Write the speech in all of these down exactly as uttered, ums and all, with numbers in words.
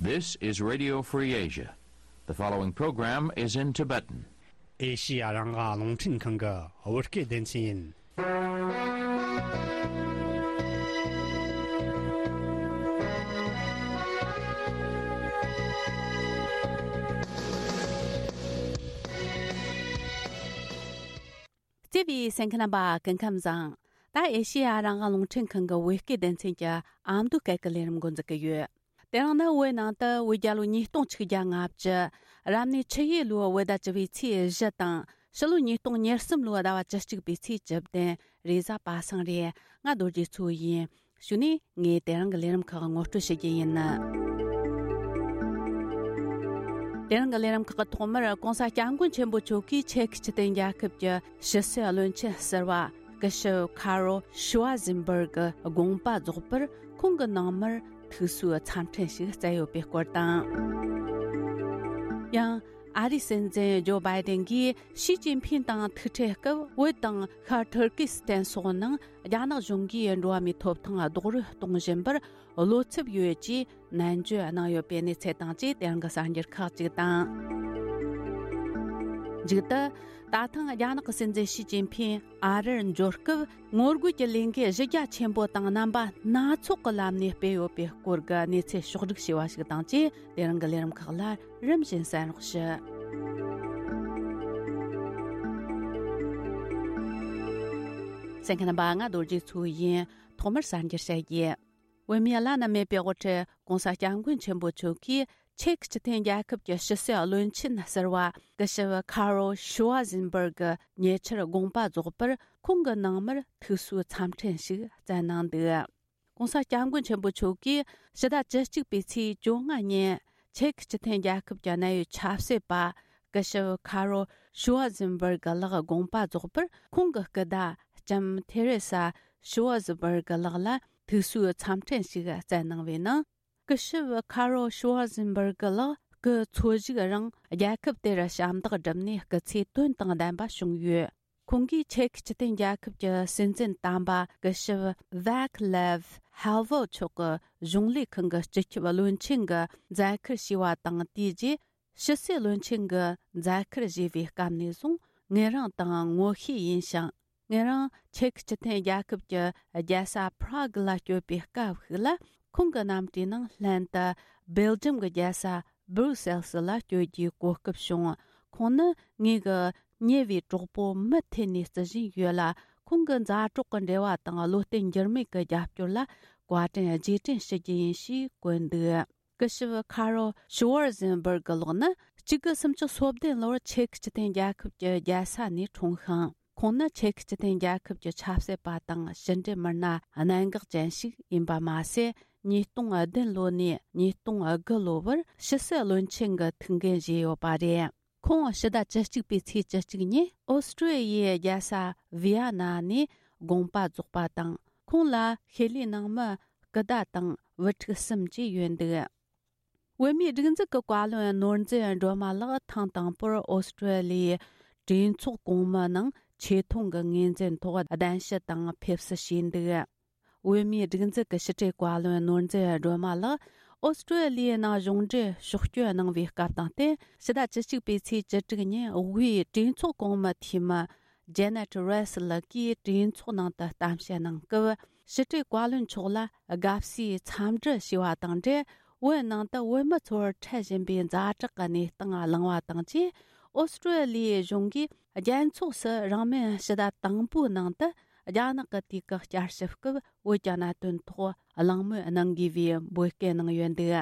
This is Radio Free Asia. The following program is in Tibetan. ཨེ་ཤི་ཡ་རང་དབང་རླུང་འཕྲིན་ཁང་གི་བོད་སྐད་སྡེ་ཚན་ཡིན། བརྩེ་བའི་གསན་མཁན་རྣམ་པ་སྐུ་ཁམས་བཟང་། ད་ཨེ་ཤི་ཡ་རང་དབང་རླུང་འཕྲིན་ཁང་གི་བོད་སྐད་སྡེ་ཚན་གྱི་ཨ་མདོ་སྐད་ཀྱི་ལས་རིམ་འགོ་འཛུགས་ཀྱི་ཡོད། དེ་རིང་ནི་བོད་ནང་དུ་བོད་རྒྱལ་ལོ་ཉིས་སྟོང་ཆིག་བརྒྱ་ལྔ་བཅུ། རབ་གནས་ཆུ་ཡོས་ལོའི་བོད་ཟླ་བཅུ་བའི་ཚེས་བཞི་དང་། ཕྱི་ལོ་ཉིས་སྟོང་ཉེར་གསུམ་ལོའི་ཟླ་བ་བཅུ་གཅིག་པའི་ཚེས་བཅུ་བདུན། རེས་གཟའ་པ་སངས་རེད། ང་རྡོ་རྗེ་མཚོ་ཡིན། གཞུག་ནས་ངས་དེ་རིང་གི་ལས་རིམ་ཁག་ངོ་སྤྲོད་བྱེད་རྒྱུ་ཡིན། དེ་རིང་གི་ལས་རིམ་ཁག་གི་ཐོག་མར་༸གོང་ས་༸སྐྱབས་མགོན་ཆེན་པོ་མཆོག་གིས་ཅེཀ་སྤྱི་མཐུན་རྒྱལ་ཁབ་ཀྱི་ཕྱི་སྲིད་བློན་ཆེན་ཟུར་པ་སྐུ་ཞབས་ཁ་རོ་ཤུ་ཝ་ཟིན་བར་གི་དགོངས་པ་རྫོགས་པར་ཁོང་གི་ནང་མིར་ཐུགས་གསོའི་འཚམས་འཕྲིན་ཞིག་བསྩལ་ཡོད་པའི་སྐོར་དང་། ཡང་། ཨ་རིའི་སྲིད་འཛིན་ཇོ་བྷའི་ཏིན་གྱིས་ཞི་ཅིན་ཕིན་དང་ཐུག་འཕྲད་སྐབས་བོད་དང་ཤར་ཐུར་ཀི་སི་ཐན་སོགས་ནང་རྒྱ་ནག་གཞུང་གིས་འགྲོ་བ་མིའི་ཐོབ་ཐང་རྡོག་རོལ་གཏོང་བཞིན་པར་བློ་འཚབ་ཡོད་ཅེས་ནན་བརྗོད་གནང་ཡོད་པའི་གནས་ཚུལ་དང་བཅས་དེ་རིང་གི་གསར་འགྱུར་ཁག་ཅིག་དང་། མཇུག་ཏུ། ད་ཐེངས་རྒྱ་ནག་གི་སྲིད་འཛིན་ཞི་ཅིན་ཕིན་ཨ་རིར་འབྱོར་སྐབས་ངོ་རྒོལ་གྱི་ལས་འགུལ་གཞི་རྒྱ་ཆེན་པོ་དང་རྣམ་པ་སྣ་ཚོགས་ཀྱི་ལམ་ནས་སྤེལ་ཡོད་པའི་སྐོར་གྱི་གནས་ཚུལ་ཕྱོགས་བསྒྲིགས་བྱས་པ་ཞིག་དང་བཅས་དེ་རིང་གི་ལས་རིམ་ཁག་ལ་རིམ་བཞིན་གསན་རོགས་ཞུ། གསན་མཁན་རྣམ་པ། ང་རྡོ་རྗེ་མཚོ་ཡིན། ཐོག་མར་གསར་འགྱུར་བཤད་རྒྱུ། བོད་མིའི་བླ་ན་མེད་པའི་དབུ་ཁྲིད་༸གོང་ས་༸སྐྱབས་མགོན་ཆེན་པོ་མཆོག་གིས་ཅེཀ་སྤྱི་མཐུན་རྒྱལ་ཁབ་ཀྱི་ཕྱི་སྲིད་བློན་ཆེན་ཟུར་པ་སྐུ་ཞབས་ཁ་རོ་ཤུ་ཝ་ཟིན་བར་གི་ཉེ་ཆར་དགོངས་པ་རྫོགས་པར་ཁོང་གི་ནང་མིར་ཐུགས་གསོའི་འཚམས་འཕྲིན་ཞིག་བསྩལ་གནང་འདུག ༸གོང་ས་༸སྐྱབས་མགོན་ཆེན་པོ་མཆོག་གིས་ཕྱི་ཟླ་བཅུ་གཅིག་པའི་ཚེས་བཅོ་ལྔ་ཉིན་ཅེཀ་སྤྱི་མཐུན་རྒྱལ་ཁབ་ཀྱི་གནད་ཡོད་ཆབ་སྲིད་པ་སྐུ་ཞབས་ཁ་རོ་ཤུ་ཝ་ཟིན་བར་གི་ལགས་དགོངས་པ་རྫོགས་པར་ཁོང་གི་སྐུ་ཟླ་ལྕམ་ཐེ་རེ་ས་ཤུ་ཝ་ཟིན་བར་གི་ལགས་ལ་ཐུགས་གསོའི་འཚམས་འཕྲིན་ཞིག་བསྩལ་གནང་བའི་ནང་། སྐུ་ཞབས་ཁ་རོ་ཤུ་ཝ་ཟིན་བར་གི་ལགས་སྐུ་འཚོ་བཞུགས་རིང་རྒྱལ་ཁབ་དེར་ཞབས་འདེགས་བསྒྲུབས་ནས་སྐུ་ཚེ་དོན་དང་ལྡན་པ་བྱུང་ཡོད། ཁོང་གིས་ཅེཀ་སྤྱི་མཐུན་རྒྱལ་ཁབ་ཀྱི་སྲིད་འཛིན་དམ་པ་སྐུ་ཞབས་ཝེག་ལེབ་ཧེལ་ཝོ་མཆོག་གི་གཞུང་ལས་ཁང་གི་སྤྱི་ཁྱབ་བློན་ཆེན་གྱི་མཛད་ཁུར་བཞེས་པ་དང་། དེའི་རྗེས་ཕྱི་སྲིད་བློན་ཆེན་གྱི་མཛད་ཁུར་བཞེས་པའི་སྐབས་ནས་བཟུང་ངེད་རང་དང་ངོ་ཤེས་ཡིན་ཞིང་། ངེད་རང་ཅེཀ་སྤྱི་མཐུན་རྒྱལ་ཁབ་ཀྱི་རྒྱལ་ས་པྲ་གི་ལ་བསྐྱོད་པའི་སྐབས་ཤིག་ལ། ཁོང་གི་རྣམ་གྲྭའི་ནང་ལྷན་དུ་སྦེལ་ཇམ་གྱི་རྒྱལ་ས་སྦུར་སེལ་སི་ལ་བསྐྱོད་རྒྱུའི་གོ་སྐབས་བྱུང་། ཁོང་ནི་ངེད་ཀྱི་ཉེ་བའི་གྲོགས་པོ་མུ་མཐུད་ནས་བརྩི་བཞིན་ཡོད་ལ། ཁོང་གི་མཛའ་གྲོགས་ཀྱི་འབྲེལ་བ་དང་བློ་བརྟན་འགྱུར་མེད་ཀྱི་རྒྱབ་སྐྱོར་ལ་བཀའ་དྲིན་རྗེས་དྲན་ཞུ་རྒྱུ་ཡིན་ཞེས་བཀོད་འདུག་སྐུ་ཞབས་ཁ་རོ་ཤུ་ཝར་ཟེན་བར་གི་ལགས་ནི་གཅིག་དགུ་སུམ་ཅུ་སོ་བདུན་ལོར་ཅེཀ་སྤྱི་མཐུན་རྒྱལ་ཁབ་ཀྱི་རྒྱལ་ས་ནས་འཁྲུངས་ཤིང་། ཁོང་ནི་ཅེཀ་སྤྱི་མཐུན་རྒྱལ་ཁབ་ཀྱི་ཆབ་སྲིད་པ་དང་ཕྱི་འབྲེལ་མི་སྣ་གནད་འགག་ཅན་ཞིག་ཡིན་པ་མ་ཟད། ཉིས་སྟོང་བདུན་ལོ་ནས་ཉིས་སྟོང་དགུ་ལོ་བར་ཕྱི་སྲིད་བློན་ཆེན་གྱི་ཐུགས་འགན་བཞེས་ཡོད་པ་རེད། ཁོང་ཕྱི་ཟླ་བཅུ་གཅིག་པའི་ཚེས་བཅུ་གཅིག་ཉིན་ཨོ་སི་ཀྲོ་ལི་ཡའི་རྒྱལ་ས་ཝི་ཡ་ན་ནས་དགོངས་པ་རྫོགས་པ་དང་། ཁོང་ལ་ཤེས་ལས་ནང་མི་སྐུ་ཟླ་དང་བུ་ཕྲུག་གསུམ་བཅས་ཡོད་འདུག་བོད་མིའི་སྒྲིག་འཛུགས་ཀྱི་བཀའ་བློན་ནོར་འཛིན་སྒྲོལ་མ་ལགས་ཐེངས་དང་པོར་ཨོ་སི་ཀྲོ་ལི་ཡའི་གྲོས་ཚོགས་གོང་མའི་ནང་ཆེ་མཐོང་གི་ངོས་འཛིན་ཐོག་གདན་ཞུ་དང་ཕེབས་བསུ་བྱས་འདུག་བོད་མིའི་སྒྲིག་འཛུགས་ཀྱི་ཕྱི་དྲིལ་བཀའ་བློན་ནོར་འཛིན་སྒྲོལ་མ་ལགས་ཨོ་སི་ཀྲོ་ལི་ཡའི་ནང་གཞུང་འབྲེལ་ཕྱོགས་བསྐྱོད་གནང་བའི་སྐབས་དང་བསྟུན། ཕྱི་ཟླ་བཅུ་གཅིག་པའི་ཚེས་བཅུ་དྲུག་ཉིན་དབུས་གྲོས་ཚོགས་གོང་མའི་འཐུས་མི་ཇེ་ནེ་ཊི་རེས་ལགས་ཀྱིས་གྲོས་ཚོགས་ནང་དུ་གཏམ་བཤད་གནང་སྐབས། ཕྱི་དྲིལ་བཀའ་བློན་མཆོག་ལ་དགའ་བསུའི་འཚམས་འདྲི་ཞུས་པ་དང་འབྲེལ། བོད་ནང་དུ་བོད་མི་ཚོར་འཕྲད་བཞིན་པའི་ཛ་དྲག་གི་གནས་སྟངས་གླེང་བ་དང་བཅས། ཨོ་སི་ཀྲོ་ལི་ཡའི་གཞུང་གིས་རྒྱལ་ཚོགས་སུ་རིང་མིན་ཕྱི་ཟླ་དང་པོའི་ནང་དུ་རྒྱ་ནག་གི་དུས་བཀག་བསྐྱར་ཞིབ་སྐབས་བོད་ཀྱི་གནད་དོན་ཐོག་གླེང་མོལ་གནང་དགོས་པའི་འབོད་སྐུལ་གནང་ཡོད་འདུག་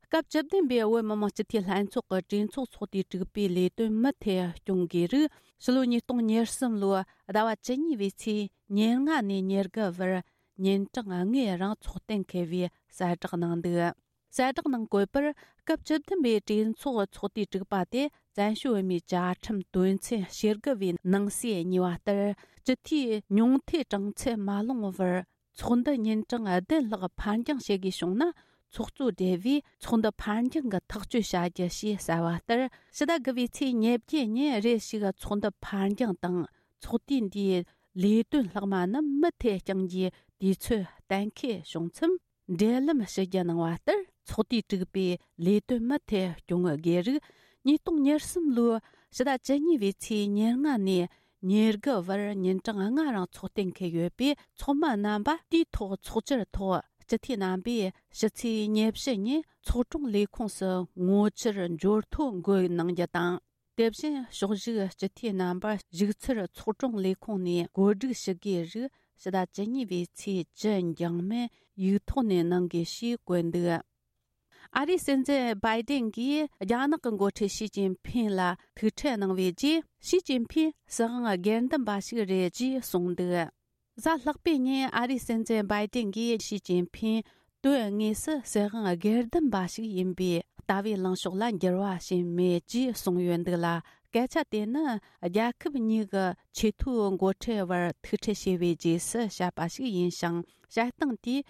སྐབས་བཅུ་བདུན་པའི་བོད་མི་མང་སྤྱི་འཐུས་ལྷན་ཚོགས་ཀྱི་གྲོས་ཚོགས་ཚོགས་དུས་དྲུག་པའི་ལས་དོན་མུ་མཐུད་སྐྱོང་དགོས་རིགས། ཕྱི་ལོ་ཉིས་སྟོང་ཉེར་གསུམ་ལོའི་ཟླ་བ་བཅུ་གཉིས་པའི་ཚེས་ཉེར་ལྔ་ནས་ཉེར་དགུ་བར་ཉིན་གྲངས་ལྔའི་རིང་ཚོགས་གཏན་འཁེལ་བའི་གསལ་བསྒྲགས་གནང་འདུག་གསལ་བསྒྲགས་ནང་བཀོད་པར། སྐབས་བཅུ་བདུན་པའི་གྲོས་ཚོགས་ཚོགས་དུས་དྲུག་པ་དེ་བཙན་བྱོལ་བོད་མིའི་བཅའ་ཁྲིམས་དོན་ཚན་ཞེ་དགུ་པའི་ནང་གསེས་གཉིས་པ་ལྟར། སྤྱི་འཐུས་ཉུང་མཐའི་གྲངས་ཚད་མ་ལོངས་བར། ཚོགས་འདུ་ཉིན་གྲངས་བདུན་ལྷག་ཕར་འགྱངས་བྱེད་དགོས་བྱུང་ན། ཚོགས་གཙོ་སྦྲེལ་བས་ཚོགས་འདུ་ཕར་འགྱངས་ཀྱི་ཐག་གཅོད་བྱ་རྒྱུ་ཞེས་གསལ་བ་ལྟར། ཕྱི་ཟླ་དགུ་པའི་ཚེས་ཉེར་བརྒྱད་ཉིན་རེ་ཞིག་ཚོགས་འདུ་ཕར་འགྱངས་དང་། ཚོགས་དུས་འདིའི་ལས་དོན་ལྷག་མ་རྣམས་མུ་མཐུད་བསྐྱང་རྒྱུའི་དུས་ཚོད་གཏན་འཁེལ་བྱུང་མཚམས། འབྲེལ་ལམ་ཞུ་རྒྱུ་གནང་བ་ལྟར། ཚོགས་སྡེས་དྲུག་པའི་ལས་དོན་མུ་མཐུད་སྐྱོང་དགོས་རིགས། ཉིས་སྟོང་ཉེར་གསུམ་ལོའི་ཕྱི་ཟླ་བཅུ་གཉིས་པའི་ཚེས་ཉེར་ལྔ་ནས་ཉེར་དགུ་བར་ཉིན་གྲངས་ལྔ་རིང་ཚོགས་གཏན་འཁེལ་ཡོད་པས། ཚོགས་མི་རྣམ་པ་དུས་ཐོག་ཚོགས་བཅར་ཐོག་སྤྱི་འཐུས་རྣམ་པས་ཕྱི་ཚེས་ཉེར་བཞི་ཉིན་ཚོགས་དྲུང་ལས་ཁུངས་སུ་ངོ་བཅར་འབྱོར་ཐོ་འགོད་གནང་རྒྱུ་དང་། དེ་བཞིན་ཕྱོགས་བཞུགས་སྤྱི་འཐུས་རྣམ་པར་བཞུགས་ཚུལ་ཚོགས་དྲུང་ལས་ཁུངས་ནས་གོ་སྒྲིག་ཞུ་དགོས་རིགས་ཕྱི་ཟླ་བཅུ་གཉིས་པའི་ཚེས་བཅུ་འགྱངས་མིན་ཡིག་ཐོག་ནས་གནང་དགོས་ཞེས་བཀོད་འདུག། ཨ་རིའི་སྲིད་འཛིན་བྷའི་ཏིན་གྱིས་རྒྱ་ནག་གི་འགོ་ཁྲིད་ཞི་ཅིན་ཕིན་ལ་ཐུག་འཕྲད་གནང་བའི་རྗེས། ཞི་ཅིན་ཕིན་སྲིད་དབང་སྒེར་འདུམ་པ་ཞིག་རེད་ཅེས་གསུངས་འདུག། གཟའ་ལྷག་པའི་ཉིན་ཨ་རིའི་སྲིད་འཛིན་བྷའི་ཏིན་གྱིས་ཞི་ཅིན་ཕིན་དོན་དངོས་སུ་སྲིད་དབང་སྒེར་འདུམ་པ་ཞིག་ཡིན་པས། ལྟ་བའི་ལངས་ཕྱོགས་ལ་འགྱུར་བ་ཕྱིན་མེད་ཅེས་གསུངས་ཡོད་འདུག་ལ། སྐད་ཆ་དེ་ནི་རྒྱལ་ཁབ་གཉིས་ཀྱི་ཆེས་མཐོའི་འགོ་ཁྲིད་བར་ཐུག་འཕྲད་བྱས་པའི་རྗེས་སུ་བཤད་པ་ཞིག་ཡིན་ཞིང་། བཤད་སྟངས་དེས་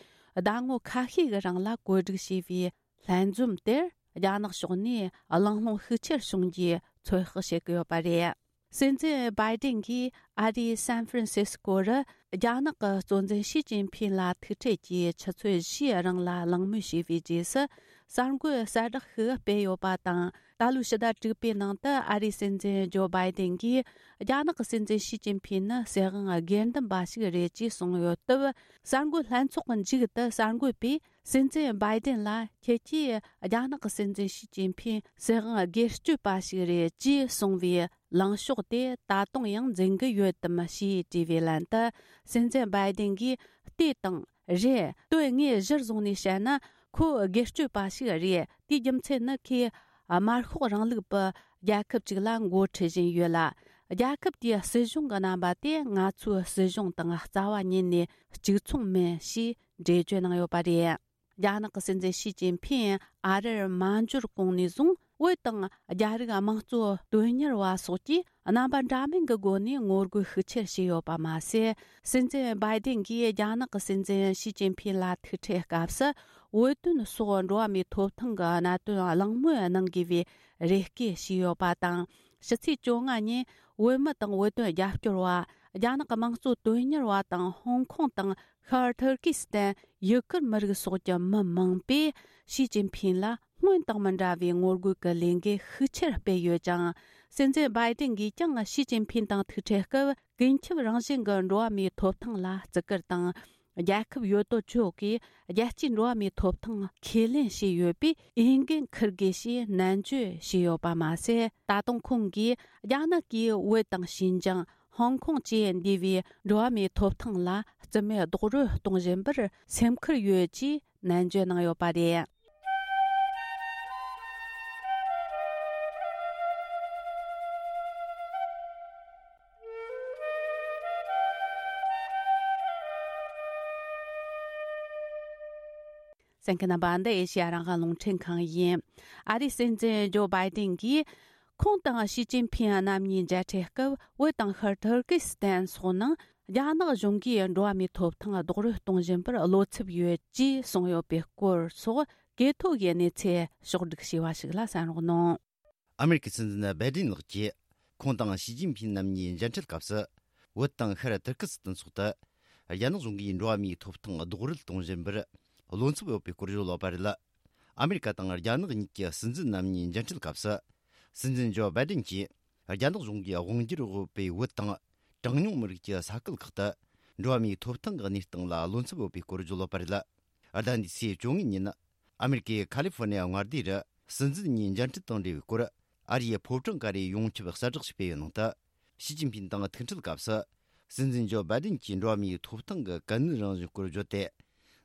ཟླ་ངོ་ཁ་ཤས་ཀྱི་རིང་ལ་གོ་སྒྲིག་བྱས་པའི་ལྷན་འཛོམས་དེར་རྒྱ་ནག་ཕྱོགས་ནས་གླེང་སློང་ཤུགས་ཆེར་བྱུང་རྒྱུའི་ཚོད་དཔག་བྱེད་ཀྱི་ཡོད་པ་རེད། སྲིད་འཛིན་བྷའི་ཏིན་གྱིས་ཨ་རིའི་སན་ཧྥ་རན་སིས་ཀོ་རུ་རྒྱ་ནག་གི་གཙོ་འཛིན་ཞི་ཅིན་ཕིན་ལ་ཐུག་འཕྲད་ཀྱིས་ཆུ་ཚོད་བཞིའི་རིང་ལ་གླེང་མོལ་བྱས་པའི་རྗེས་སུ། གསར་འགོད་གསལ་བསྒྲགས་ཤིག་སྤེལ་ཡོད་པ་དང་། ད་ལོའི་ཕྱི་ཟླ་དྲུག་པའི་ནང་དུ་ཨ་རིའི་སྲིད་འཛིན་ཇོ་བྷའི་ཏིན་གྱིས་རྒྱ་ནག་གི་སྲིད་འཛིན་ཞི་ཅིན་ཕིན་ནི་སྲིད་དབང་སྒེར་འདུམ་པ་ཞིག་རེད་ཅེས་གསུངས་ཡོད་སྟབས། གསར་འགོད་ལྷན་ཚོགས་ཀྱི་མཇུག་ཏུ་གསར་འགོད་པས་སྲིད་འཛིན་བྷའི་ཏིན་ལ། ཁྱེད་ཀྱིས་རྒྱ་ནག་གི་སྲིད་འཛིན་ཞི་ཅིན་ཕིན་སྲིད་དབང་སྒེར་གཅོད་པ་ཞིག་རེད་ཅེས་གསུངས་པའི་ལངས་ཕྱོགས་དེ་ད་དུང་ཡང་འཛིན་གྱི་ཡོད་དམ་ཞེས་དྲིས་པའི་ལན་དུ། སྲིད་འཛིན་བྷའི་ཏིན་གྱིས། ལྟོས་དང་། རེད། དོན་དངོས་གཞིར་བཟུང་ནས་བཤད་ན། ཁོ་སྒེར་གཅོད་པ་ཞིག་རེད། དེའི་རྒྱུ་མཚན་ནི་ཁོས་དམར་ཤོག་རིང་ལུགས་པའི་རྒྱལ་ཁབ་ཅིག་ལ་འགོ་ཁྲིད་བཞིན་ཡོད་ལ། རྒྱལ་ཁབ་དེའི་སྲིད་གཞུང་གི་རྣམ་པ་དེ་ང་ཚོའི་སྲིད་གཞུང་དང་རྩ་བ་ཉིད་ནས་གཅིག་མཚུངས་མིན་ཞེས་འགྲེལ་བརྗོད་གནང་ཡོད་པ་རེད། རྒྱ་ནག་གི་སྲིད་འཛིན་ཞི་ཅིན་ཕིན་ཨ་རིར་མ་འབྱོར་གོང་ནས་བཟུང་། བོད་དང་རྒྱ་རིགས་དམངས་གཙོ་དོན་གཉེར་བ་སོགས་ཀྱིས་རྣམ་པ་འདྲ་མིན་གྱི་སྒོ་ནས་ངོ་རྒོལ་ཤུགས་ཆེར་བྱས་ཡོད་པ་མ་ཟད། སྲིད་འཛིན་བྷའི་ཏིན་གྱིས་རྒྱ་ནག་གི་སྲིད་འཛིན་ཞི་ཅིན་ཕིན་ལ་ཐུག་འཕྲད་སྐབས་སུ། བོད་དོན་སོགས་འགྲོ་བ་མིའི་ཐོབ་ཐང་གི་གནད་དོན་གླེང་མོལ་གནང་དགོས་པའི་རེ་སྐུལ་བྱས་ཡོད་པ་དང་། ཕྱི་ཚེས་བཅོ་ལྔ་ཉིན་བོད་མི་དང་བོད་དོན་རྒྱབ་སྐྱོར་བ། རྒྱ་ནག་གི་དམངས་གཙོ་དོན་གཉེར་བ་དང་། ཧོང་ཀོང་དང་ཤར་ཐུར་ཀི་སི་ཐན། ཡུ་གུར་མི་རིགས་སོགས་ཀྱི་མི་མང་པོས་ཞི་ཅིན་ཕིན་ལ་སྔོན་དང་མི་འདྲ་བའི་ངོ་རྒོལ་གྱི་ལས་འགུལ་ཤུགས་ཆེར་སྤེལ་ཡོད་ཅིང་། སྲིད་འཛིན་བྷའི་ཏིན་གྱིས་ཀྱང་ཞི་ཅིན་ཕིན་དང་ཐུག་འཕྲད་སྐབས། ཀུན་ཁྱབ་རང་བཞིན་གྱི་འགྲོ་བ་མིའི་ཐོབ་ཐང་ལ་བརྩི་བཀུར་དང་། རྒྱལ་ཁབ་ཡོད་དོ་ཅོག་གིས་རྒྱལ་སྤྱིའི་འགྲོ་བ་མིའི་ཐོབ་ཐང་ཁས་ལེན་བྱས་ཡོད་པས། འོས་འགན་འཁུར་དགོས་ཞེས་ནན་བརྗོད་བྱས་ཡོད་པ་མ་ཟད། ད་དུང་ཁོང་གིས་རྒྱ་ནག་གིས་བོད་དང་ཞིན་ཅང་། ཧོང་ཀོང་བཅས་འདས་པའི་འགྲོ་བ་མིའི་ཐོབ་ཐང་ལ་རྩིས་མེད་རྡོག་རོལ་གཏོང་བཞིན་པར་སེམས་ཁུར་ཡོད་ཅེས་ནན་བརྗོད་གནང་ཡོད་པ་རེད། གསན་མཁན་རྣམ་པ། འདི་ཨེ་ཤེ་ཡ་རང་དབང་རླུང་འཕྲིན་ཁང་ཡིན། ཨ་རིའི་སྲིད་འཛིན་ཇོ་བྷའི་ཏིན་གྱིས། ཁོང་དང་ཞི་ཅིན་ཕིན་རྣམ་གཉིས་མཇལ་འཕྲད་སྐབས། བོད་དང་ཤར་ཐུར་ཀི་སི་ཐན་སོགས་ནང་རྒྱ་ནག་གཞུང་གིས་འགྲོ་བ་མིའི་ཐོབ་ཐང་རྡོག་རོལ་གཏོང་བཞིན་པར་བློ་འཚབ་ཡོད་ཅེས་གསུངས་ཡོད་པའི་སྐོར་སོགས། གོ་ཐོས་ཀྱི་གནས་ཚུལ་ཕྱོགས་བསྒྲིགས་བྱས་པ་ཞིག་ལ་གསན་རོགས་གནང་། ཨ་མེ་རི་ཀའི་སྲིད་འཛིན་བྷའི་ཏིན་ལགས་ཀྱིས། ཁོང་དང་ཞི་ཅིན་ཕིན་རྣམ་གཉིས་མཇལ་འཕྲད་སྐབས་སུ། བོད་དང་ཤར་ཐུར་ཀི་སི་ཐན་སོགས་དུ། རྒྱ་ནག་གཞུང་གིས་འགྲོ་བ་མིའི་ཐོབ་ཐང་རྡོག་རོལ་གཏོང་བཞིན་པར། བློ་འཚབ་ཡོད་པའི་སྐོར་བརྗོད་ཡོད་པ་རེད། ཨ་མེ་རི་ཀ་དང་རྒྱ་ནག་གཉིས་ཀྱི་སྲིད་འཛིན་རྣམ་གཉིས་མཇལ་འཕྲད་སྐབས་སུ། སྲིད་འཛིན་ཇོ་བྷའི་ཏིན་གྱིས། རྒྱ་ནག་གཞུང་གིས་དབང་སྒྱུར་འོས་པའི་བོད་དང་། གྲངས་ཉུང་མི་རིགས་ཀྱི་ས་ཁུལ་ཁག་ཏུ། འགྲོ་བ་མིའི་ཐོབ་ཐང་གི་གནས་སྟངས་ལ་བློ་འཚབ་ཡོད་པའི་སྐོར་བརྗོད་ཡོད་པ་རེད། ཟླ་འདིའི་ཚེས་བཅོ་ལྔ་ཉིན། ཨ་མེ་རི་ཀའི་ཁ་ལི་ཧྥོ་ནི་ཡ་མངའ་སྡེ་རུ། སྲིད་འཛིན་གཉིས་མཇལ་འཕྲད་དང་འབྲེལ་བའི་སྐོར། ཨ་རིའི་ཕོ་བྲང་ཀ་རའི་ཡོངས་ཁྱབ་གསལ་བསྒྲགས་ཤིག་སྤེལ་ཡོད་ནང་དུ། ཞི་ཅིན་ཕིན་དང་ཐུག་འཕྲད་སྐབས་སུ། སྲིད་འཛིན་ཇོ་བྷའི་ཏིན་གྱིས་འགྲོ་བ་མིའི་ཐོབ་ཐང་གི་གལ་གནད་རང་བཞིན་སྐོར་བརྗོད་དེ།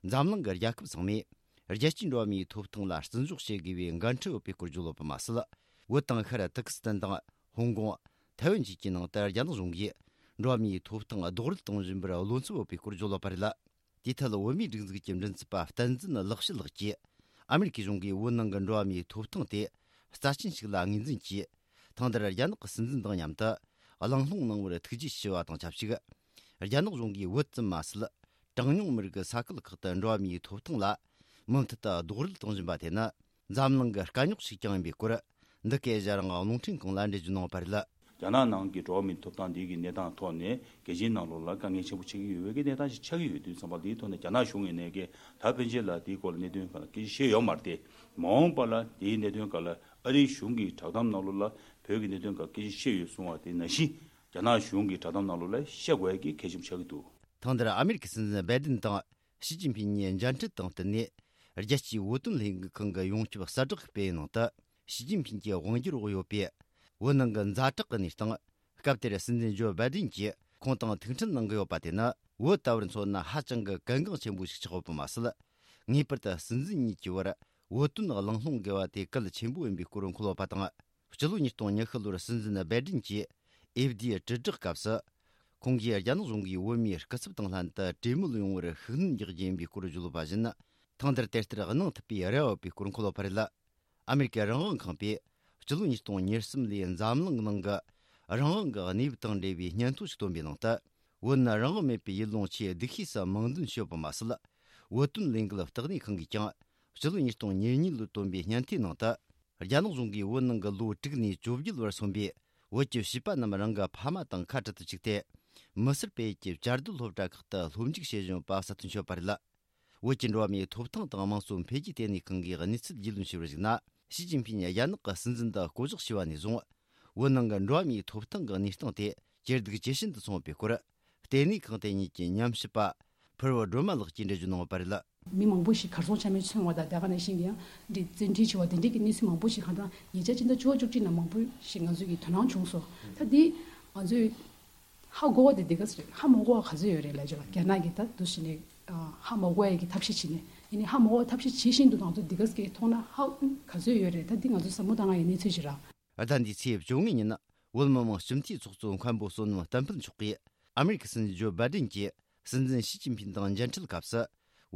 འཛམ་གླིང་གི་རྒྱལ་ཁབ་ཚང་མས། རྒྱལ་སྤྱིའི་འགྲོ་བ་མིའི་ཐོབ་ཐང་ལ་བརྩི་འཇོག་བྱེད་དགོས་པའི་འགན་འཁྲི་ཡོད་པའི་སྐོར་བརྗོད་ཡོད་པ་མ་ཟད། བོད་དང་ཤར་ཐུར་ཀི་སི་ཐན་དང་། ཧོང་ཀོང་། ཐའེ་ཝན་བཅས་ཀྱི་ནང་དུ་རྒྱ་ནག་གཞུང་གིས། འགྲོ་བ་མིའི་ཐོབ་ཐང་རྡོག་རོལ་གཏོང་བཞིན་པར་བློ་འཚབ་ཡོད་པའི་སྐོར་བརྗོད་ཡོད་པ་རེད། དེའི་ཐད། བོད་མིའི་སྒྲིག་འཛུགས་ཀྱི་མགྲིན་ཚབ་པ་བསྟན་འཛིན་ལེགས་བཤད་ལགས་ཀྱིས། ཨ་མེ་རི་ཀའི་གཞུང་གིས་བོད་ནང་གི་འགྲོ་བ་མིའི་ཐོབ་ཐང་དེ་རྩ་ཆེན་ཞིག་ལ་ངོས་འཛིན་གྱིས། ཐེངས་འདིར་རྒྱ་ནག་གི་སྲིད་འཛིན་དང་མཉམ་དུ་གླེང་སློང་གནང་བར་ཐུགས་རྗེ་ཆེ་བ་དང་ཆབས་ཅིག། རྒྱ་ནག་གཞུང་གིས་བོད་ཙམ་མ་ཟད། གྲངས་ཉུང་མི་རིགས་ས་ཁུལ་ཁག་ཏུ་འགྲོ་བ་མིའི་ཐོབ་ཐང་ལ་མུ་མཐུད་དུ་རྡོག་རོལ་གཏོང་བཞིན་པ་དེ་ནི། འཛམ་གླིང་གི་དཀའ་རྙོག་ཞིག་ཀྱང་ཡིན་པའི་སྐོར། འདི་གའི་ཨེ་ཤེ་ཡ་རང་དབང་རླུང་འཕྲིན་ཁང་ལ་འགྲེལ་བརྗོད་གནང་བ་རེད། རྒྱ་ནག་ནང་གི་འགྲོ་བ་མིའི་ཐོབ་ཐང་འདི་གི་གནས་སྟངས་ཐོག་ནས་རྒྱལ་སྤྱིའི་ནང་ལོགས་ལ་དཀའ་ངལ་ཆེན་པོ་ཆགས་ཀྱི་ཡོད་པའི་གི་གནས་སྟངས་ཤིག་ཆགས་ཀྱི་ཡོད་དུས་ཙམ་པ། འདིའི་ཐོག་ནས་རྒྱ་ནག་གཞུང་ངོས་ནས་གི་ད་ཕན་ཆད་ལ་འདིའི་སྐོར་ལ་གནད་དོན་སྒང་ལ་སྐད་ཆ་བཤད་ཡོད་མ་རེད་དེ། མ་འོངས་པ་ལ་འདིའི་གནད་དོན་སྒང་ལ་ཨ་རིའི་གཞུང་གི་བསྒྲགས་གཏམ་ནང་ལོགས་ལ་བོད་ཀྱི་གནད་དོན་སྒང་སྐད་ཆ་བཤད་ཡོད་གསུང་བ་དེ་ནང་བཞིན། རྒྱ་ནག་གཞུང་གི་བསྒྲགས་གཏམ་ནང་ལོགས་ལ་བཤད་དགོས་ཡ་གི་གལ་ཆེན་པོ་ཆགས་ཀྱི་འདུག། ཐང་དེར་ཨ་མེ་རི་ཁའི་སྲིད་འཛིན་སྦའི་ཏིན་དང་ཞི་ཅིན་ཕིན་གཉིས་མཇལ་འཕྲད་དང་བསྟུན་ནས། རྒྱལ་སྤྱིའི་བོད་དོན་ལས་འགུལ་ཁང་གི་ཡོངས་ཁྱབ་གསལ་བསྒྲགས་སྤེལ་ཡུལ་ནང་དུ། ཞི་ཅིན་ཕིན་གྱི་དབང་སྒྱུར་འོག་ཡོད་པའི་བོད་ནང་གི་ཛ་དྲག་གི་གནས་སྟངས། སྐབས་དེར་སྲིད་འཛིན་ཇོ་སྦའི་ཏིན་གྱིས་ཁོང་དང་ཐུག་འཕྲད་གནང་གི་ཡོད་པ་དེ་ནི། བོད་ལྟ་བུར་མཚོན་ན་ཧ་ཅང་གི་གལ་འགངས་ཆེན་པོ་ཞིག་ཆགས་ཡོད་པ་མ་ཟད། ངེས་པར་དུ་སྲིད་འཛིན་གཉིས་ཀྱི་བར་བོད་དོན་གླེང་སློང་དགོས་པ་དེ་གལ་ཆེན་པོ་ཡིན་པའི་སྐོར་འཁོད་ཡོད་པ་དང་། སྤྱི་ལོ་ཉིས་སྟོང་ཉི་ཤུ་ལོར་སྲིད་འཛིན་སྦའི་ཏིན་གྱིས་ཨེ་ཕི་ཌི་ཡའི་དྲིལ་བསྒྲགས་སྐབས་སུ། ཁོང་གིས་རྒྱ་ནག་གཞུང་གིས་བོད་མིའི་སྐུ་ཚབ་དང་ལྷན་དུ་གྲོས་མོལ་ཡོང་བར་ཤུགས་སྣོན་རྒྱག་རྒྱུ་ཡིན་པའི་སྐོར་བརྗོད་ཡོད་པ་བཞིན། ཐེངས་འདིར་དེ་ལྟར་གནང་ཐུབ་པའི་རེ་བ་ཡོད་པའི་སྐོར་འཁོད་ཡོད་པ་རེད། ཨ་མེ་རི་ཀའི་རང་དབང་ཁང་པས་སྤྱི་ལོ་ཉིས་སྟོང་ཉེར་གསུམ་ལོའི་འཛམ་གླིང་ནང་གི་རང་དབང་གི་གནས་བབ་དང་འབྲེལ་བའི་སྙན་ཐོ་ཞིག་བཏོན་པའི་ནང་དུ། བོད་ནི་རང་དབང་མེད་པའི་ཡུལ་ལུང་ཆེས་སྡུག་ཤོས་སུ་མིང་འདོན་བྱས་ཡོད་པ་མ་ཟད། བོད་དོན་ལས་འགུལ་ལྟེ་གནས་ཁང་གིས་ཀྱང་སྤྱི་ལོ་ཉིས་སྟོང་ཉེར་གཉིས་ལོར་བཏོན་པའི་སྙན་ཐོའི་ནང་དུ། རྒྱ་ནག་གཞུང་གིས་བོད་ནང་གི་ལོ་དྲུག་ནས་བཅོ་བརྒྱད་བར་སོན་པའི་བོད་ཀྱི་བྱིས་པ་རྣམས་རང་གི་ཕ་མ་དང་ཁ་བྲལ་དུ་བཅུག་སྟེ། མི་སེར་སྤེལ་ཡུལ་གྱི་བཅའ་སྡོད་སློབ་གྲྭ་ཁག་ཏུ་སློབ་འཇུག་བྱེད་བཞིན་ཡོད་པ་གསལ་སྟོན་བྱས་ཡོད་པ་རེད། བོད་ཀྱི་འགྲོ་བ་མིའི་ཐོབ་ཐང་དང་དམངས་གཙོ་འཕེལ་རྒྱས་ལྟེ་གནས་ཁང་གིས་གནས་ཚུལ་རྒྱུས་ལོན་བྱས་པར་གཞིགས་ན། ཞི་ཅིན་ཕིན་རྒྱ་ནག་གི་སྲིད་འཛིན་དུ་བསྐོ་གཞག་བྱས་པ་ནས་བཟུང་། བོད་ནང་གི་འགྲོ་བ་མིའི་ཐོབ་ཐང་གི་གནས་སྟངས་དེ་ཇེ་སྡུག་ཇེ་ཞན་དུ་སོང་བའི་སྐོར། ལྟེ་གནས་ཁང་དེ་ཉིད་ཀྱི་ཉམས་ཞིབ་པ་ཕུར་བུ་སྒྲོལ་མ་ལགས་ཀྱིས་འགྲེལ་བརྗོད་གནང་ཡོད་པ་རེད། མི་མང་པོ་ཞིག་གར་སོང་ཆ་མེད་སོང་བ་དང་། དེ་ག་ནང་བཞིན་གྱི་ཡང་འདི་བཙན་ཁྲིད་བྱས་པ་དེ་འདྲའི་གི་གནས་ཚུལ་མང་པོ་ཞིག་གང་ལྟར་ཉེ་ཆར་ཕྱི་ཟླ་བཅུ་པ་བཅུ་གཅིག་ནང་མང་པོ་ཞིག་ང་ཚོས་ཀྱི་དོ་སྣང་བྱུང་སོང་། ད་འདི་ང་ཚོས་ཧ་གོ་བ་དེ་འདི་ག་ཚོད་རེད། ཧ་མ་གོ་བ་ག་ཚོད་ཡོད་རེད་ལབ་ཅིག་ལ། རྒྱ་ནག་གིས་ད་དུ་ཞིག་ནས་ཧ་མ་གོ་བ་ཡི་གི་ཐབས་ཤེས་བྱས་ནས། ཡིན་ནའི་ཧ་མ་གོ་བ་ཐབས་ཤེས་བྱེད་བཞིན་དུ་ང་ཚོ་འདི་ག་ཚོད་ཀྱི་མཐོང་ན་ཧ་ག་ཚོད་ཡོད་རེད། ད་འདི་ང་ཚོ་བསམ་བློ་བཏང་ཡ་ཡི་གནས་ཚུལ་ཞིག་རེད། ཟླ་འདིའི་ཚེས་བཅོ་ལྔ་ཉིན། བོད་མི་མང་སྤྱི་འཐུས་ཚོགས་གཙོ་མཁན་པོ་བསོད་ནམས་བསྟན་འཕེལ་མཆོག་གིས་ཨ་མེ་རི་ཁའི་སྲིད་འཛིན་ཇོ་སྦའི་ཏིན་གྱིས་སྲིད་འཛིན་ཞི་ཅིན་ཕིན་དང་མཇལ་འཕྲད་སྐབས་སུ།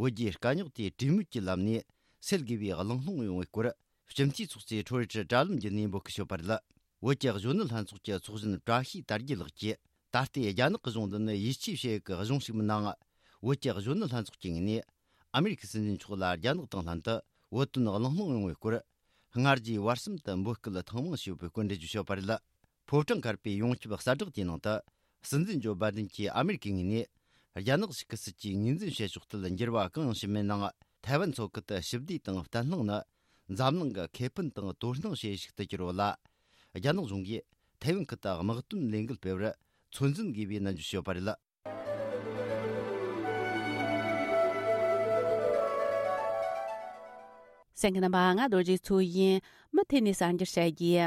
བོད་རྒྱའི་དཀའ་རྙོག་དེ་གྲོས་མོལ་གྱི་ལམ་ནས་སེལ་དགོས་པའི་གླེང་སློང་ཡོང་བའི་སྐོར། སྤྱི་འཐུས་ཚོགས་གཙོས་ཕྲོ་ཡི་ཊར་དྲ་ལམ་བརྒྱུད་ནས་འབོད་སྐུལ་ཞུས་པ་རེད། བོད་ཀྱི་གཞོན་ནུ་ལྷན་ཚོགས་ཀྱི་ཚོགས་གཞོན་བཀྲ་ཤིས་དར་རྒྱས་ལགས་ཀྱིས། ད་ལྟའི་རྒྱ་ནག་གི་གཞུང་འདི་ནི་ཡིད་ཆེས་བྱེད་ཡག་གི་གཞུང་ཞིག་མིན་ནའང་། བོད་ཀྱི་གཞོན་ནུ་ལྷན་ཚོགས་ཀྱི་ངོས་ནས་ཨ་མེ་རི་ཁའི་སྲིད་འཛིན་མཆོག་ལ་རྒྱ་ནག་དང་ལྷན་དུ་བོད་དོན་གླེང་སློང་ཡོང་བའི་སྐོར། སྔ་རྗེས་བར་གསུམ་དུ་འབོད་སྐུལ་ཐེངས་མང་ཞུས་པའི་སྐོར་འགྲེལ་བརྗོད་བྱས་པ་རེད། ཕོ་བྲང་དཀར་པོའི་ཡོངས་ཁྱབ་གསལ་བསྒྲགས་དེའི་ནང་དུ། སྲིད་འཛིན་ཇོ་སྦའི་ཏིན་གྱིས་ཨ་མེ་རི་ཁའི་ངོས་ནས། རྒྱ་ནག་གཞུག་གི་སྲིད་ཇུས་ངོས་འཛིན་བྱེད་ཕྱོགས་ཐད་འགྱུར་བ་གང་ཡང་ཕྱིན་མེད་ནའང་། ཐའེ་ཝན་མཚོ་ཁུལ་དུ་ཞི་བདེ་དང་བརྟན་ལྷིང་ནི་འཛམ་གླིང་གི་ཁེ་ཕན་དང་དོ་སྣང་བྱེད་ཡུལ་ཞིག་ཏུ་གྱུར་ཡོད་ལ། རྒྱ་ནག་གཞུང་གིས་ཐའེ་ཝན་ཁུལ་དུ་དམག་དོན་ལས་འགུལ་སྤེལ་བར་ཚོད་འཛིན་དགོས་པའི་ནན་བརྗོད་བྱས་ཡོད་པ་རེད། གསན་མཁན་རྣམ་པ། ང་རྡོ་རྗེ་མཚོ་ཡིན། མུ་མཐུད་ནས་གསར་འགྱུར་བཤད་རྒྱུ།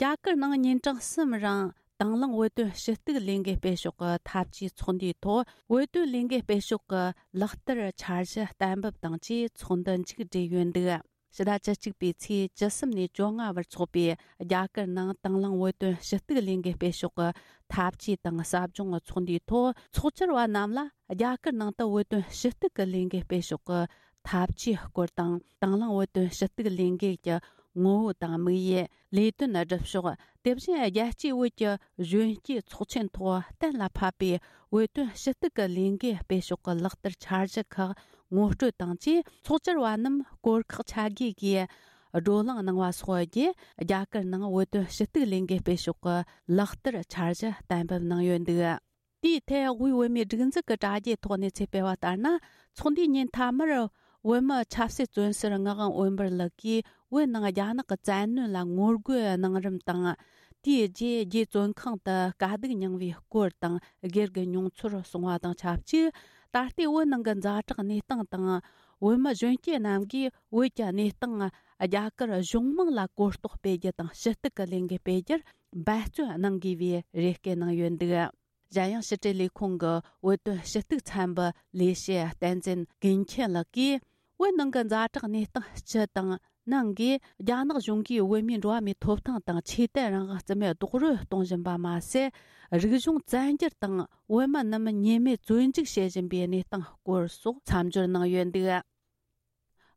རྒྱ་གར་ནང་ཉིན་གྲངས་གསུམ་རིང་དང་བླངས་བོད་དོན་ཞུ་གཏུག་ལས་འགུལ་སྤེལ་ཕྱོགས་ཀྱི་འཐབ་ཇུས་ཚོགས་འདུའི་ཐོག། བོད་དོན་ལས་འགུལ་སྤེལ་ཕྱོགས་ཀྱི་ལག་བསྟར་འཆར་གཞི་གཏན་འབེབས་དང་བཅས་ཚོགས་འདུ་མཇུག་བསྒྲིལ་ཡོད་འདུག། ཕྱི་ཟླ་བཅུ་གཅིག་པའི་ཚེས་བཅུ་གསུམ་ནས་བཅོ་ལྔ་བར་འཚོགས་པའི་རྒྱ་གར་ནང་དང་བླངས་བོད་དོན་ཞུ་གཏུག་ལས་འགུལ་སྤེལ་ཕྱོགས་ཀྱི་འཐབ་ཇུས་དང་ཟབ་སྦྱོང་ཚོགས་འདུའི་ཐོག། ཚོགས་བཅར་བ་རྣམས་ལ་རྒྱ་གར་ནང་དུ་བོད་དོན་ཞུ་གཏུག་གི་ལས་འགུལ་སྤེལ་ཕྱོགས་ཀྱི་འཐབ་ཇུས་སྐོར་དང་། དང་བླངས་བོད་དོན་ཞུ་གཏུག་ལས་འགུལ་གྱི་ངོ་བོ་དང་དམིགས་ཡུལ། ལས་དོན་སྒྲུབ་ཕྱོགས། དེ་བཞིན་རྒྱལ་སྤྱིའི་བོད་ཀྱི་གཞོན་སྐྱེས་ཚོགས་ཆེན་ཐོག་གཏན་ལ་ཕབ་པའི་བོད་དོན་ཞུ་གཏུག་གི་ལས་འགུལ་སྤེལ་ཕྱོགས་ཀྱི་ལག་བསྟར་འཆར་གཞི་ཁག་ངོ་སྤྲོད་དང་བཅས། ཚོགས་བཅར་བ་རྣམས་སྐོར་ཁག་ཆ་བརྒྱད་ཀྱིས་བགྲོ་གླེང་གནང་བ་སོགས་བརྒྱུད། རྒྱ་གར་ནང་བོད་དོན་ཞུ་གཏུག་ལས་འགུལ་སྤེལ་ཕྱོགས་ཀྱི་ལག་བསྟར་འཆར་གཞི་གཏན་འབེབས་གནང་ཡོད་འདུག། དེའི་ཐད། དབུས་བོད་མིའི་སྒྲིག་འཛུགས་ཀྱི་དྲ་རྒྱའི་ཐོག་གནས་ཚུལ་སྤེལ་བ་ལྟར་ན། ཚོགས་འདུའི་ཉིན་མཐའ་མར། བོད་མི་ཆབ་སྲིད་བཙོན་ཟུར་ངག་དབང་འོད་འབར་ལགས་ཀྱིས། བོད་ནང་རྒྱ་ནག་གི་བཙན་གནོན་ལ་ངོ་རྒོལ་གནང་རིམ་དང་། དེའི་རྗེས། རྒྱའི་བཙོན་ཁང་དུ་དཀའ་སྡུག་མྱངས་པའི་སྐོར་དང་། སྒེར་གྱི་མྱོང་ཚོར་གསུངས་པ་དང་ཆབས་ཅིག། ད་ལྟའི་བོད་ནང་གི་ཛ་དྲག་གནས་སྟངས་དང་། བོད་མི་གཞོན་སྐྱེས་རྣམས་ཀྱིས་བོད་ཀྱི་གནས་སྟངས། རྒྱ་གར་གཞུང་མང་ལ་གོ་རྟོགས་སྤེལ་རྒྱུ་དང་། ཞུ་གཏུག་གི་ལས་འགུལ་སྤེལ་རྒྱུར་འབད་བརྩོན་གནང་དགོས་པའི་རེ་སྐུལ་གནང་ཡོད་འདུག། གཞན་ཡང་། ཕྱི་དྲིལ་ལས་ཁུངས་ཀྱི་བོད་དོན་ཞུ་གཏུག་ཚན་པའི་ལས་བྱེད་བསྟན་འཛིན་ཀུན་མཁྱེན་ལགས་ཀྱིས། བོད་ནང་གི་ཛ་དྲག་གནས་སྟངས་སྤྱི་དང་ནང་གིས། རྒྱ་ནག་གཞུང་གིས་བོད་མིའི་འགྲོ་བ་མིའི་ཐོབ་ཐང་དང་། ཆོས་དད་རང་དབང་རྩིས་མེད་རྡོག་རོལ་གཏོང་བཞིན་པ་མ་ཟད། རིག་གཞུང་བཙན་སྒྱུར་དང་། བོད་མི་རྣམས་ཉེས་མེད་བཙོན་འཇུག་བྱེད་བཞིན་པའི་གནས་སྟངས་སྐོར་སོགས་མཚམས་སྦྱོར་གནང་ཡོད་འདུག།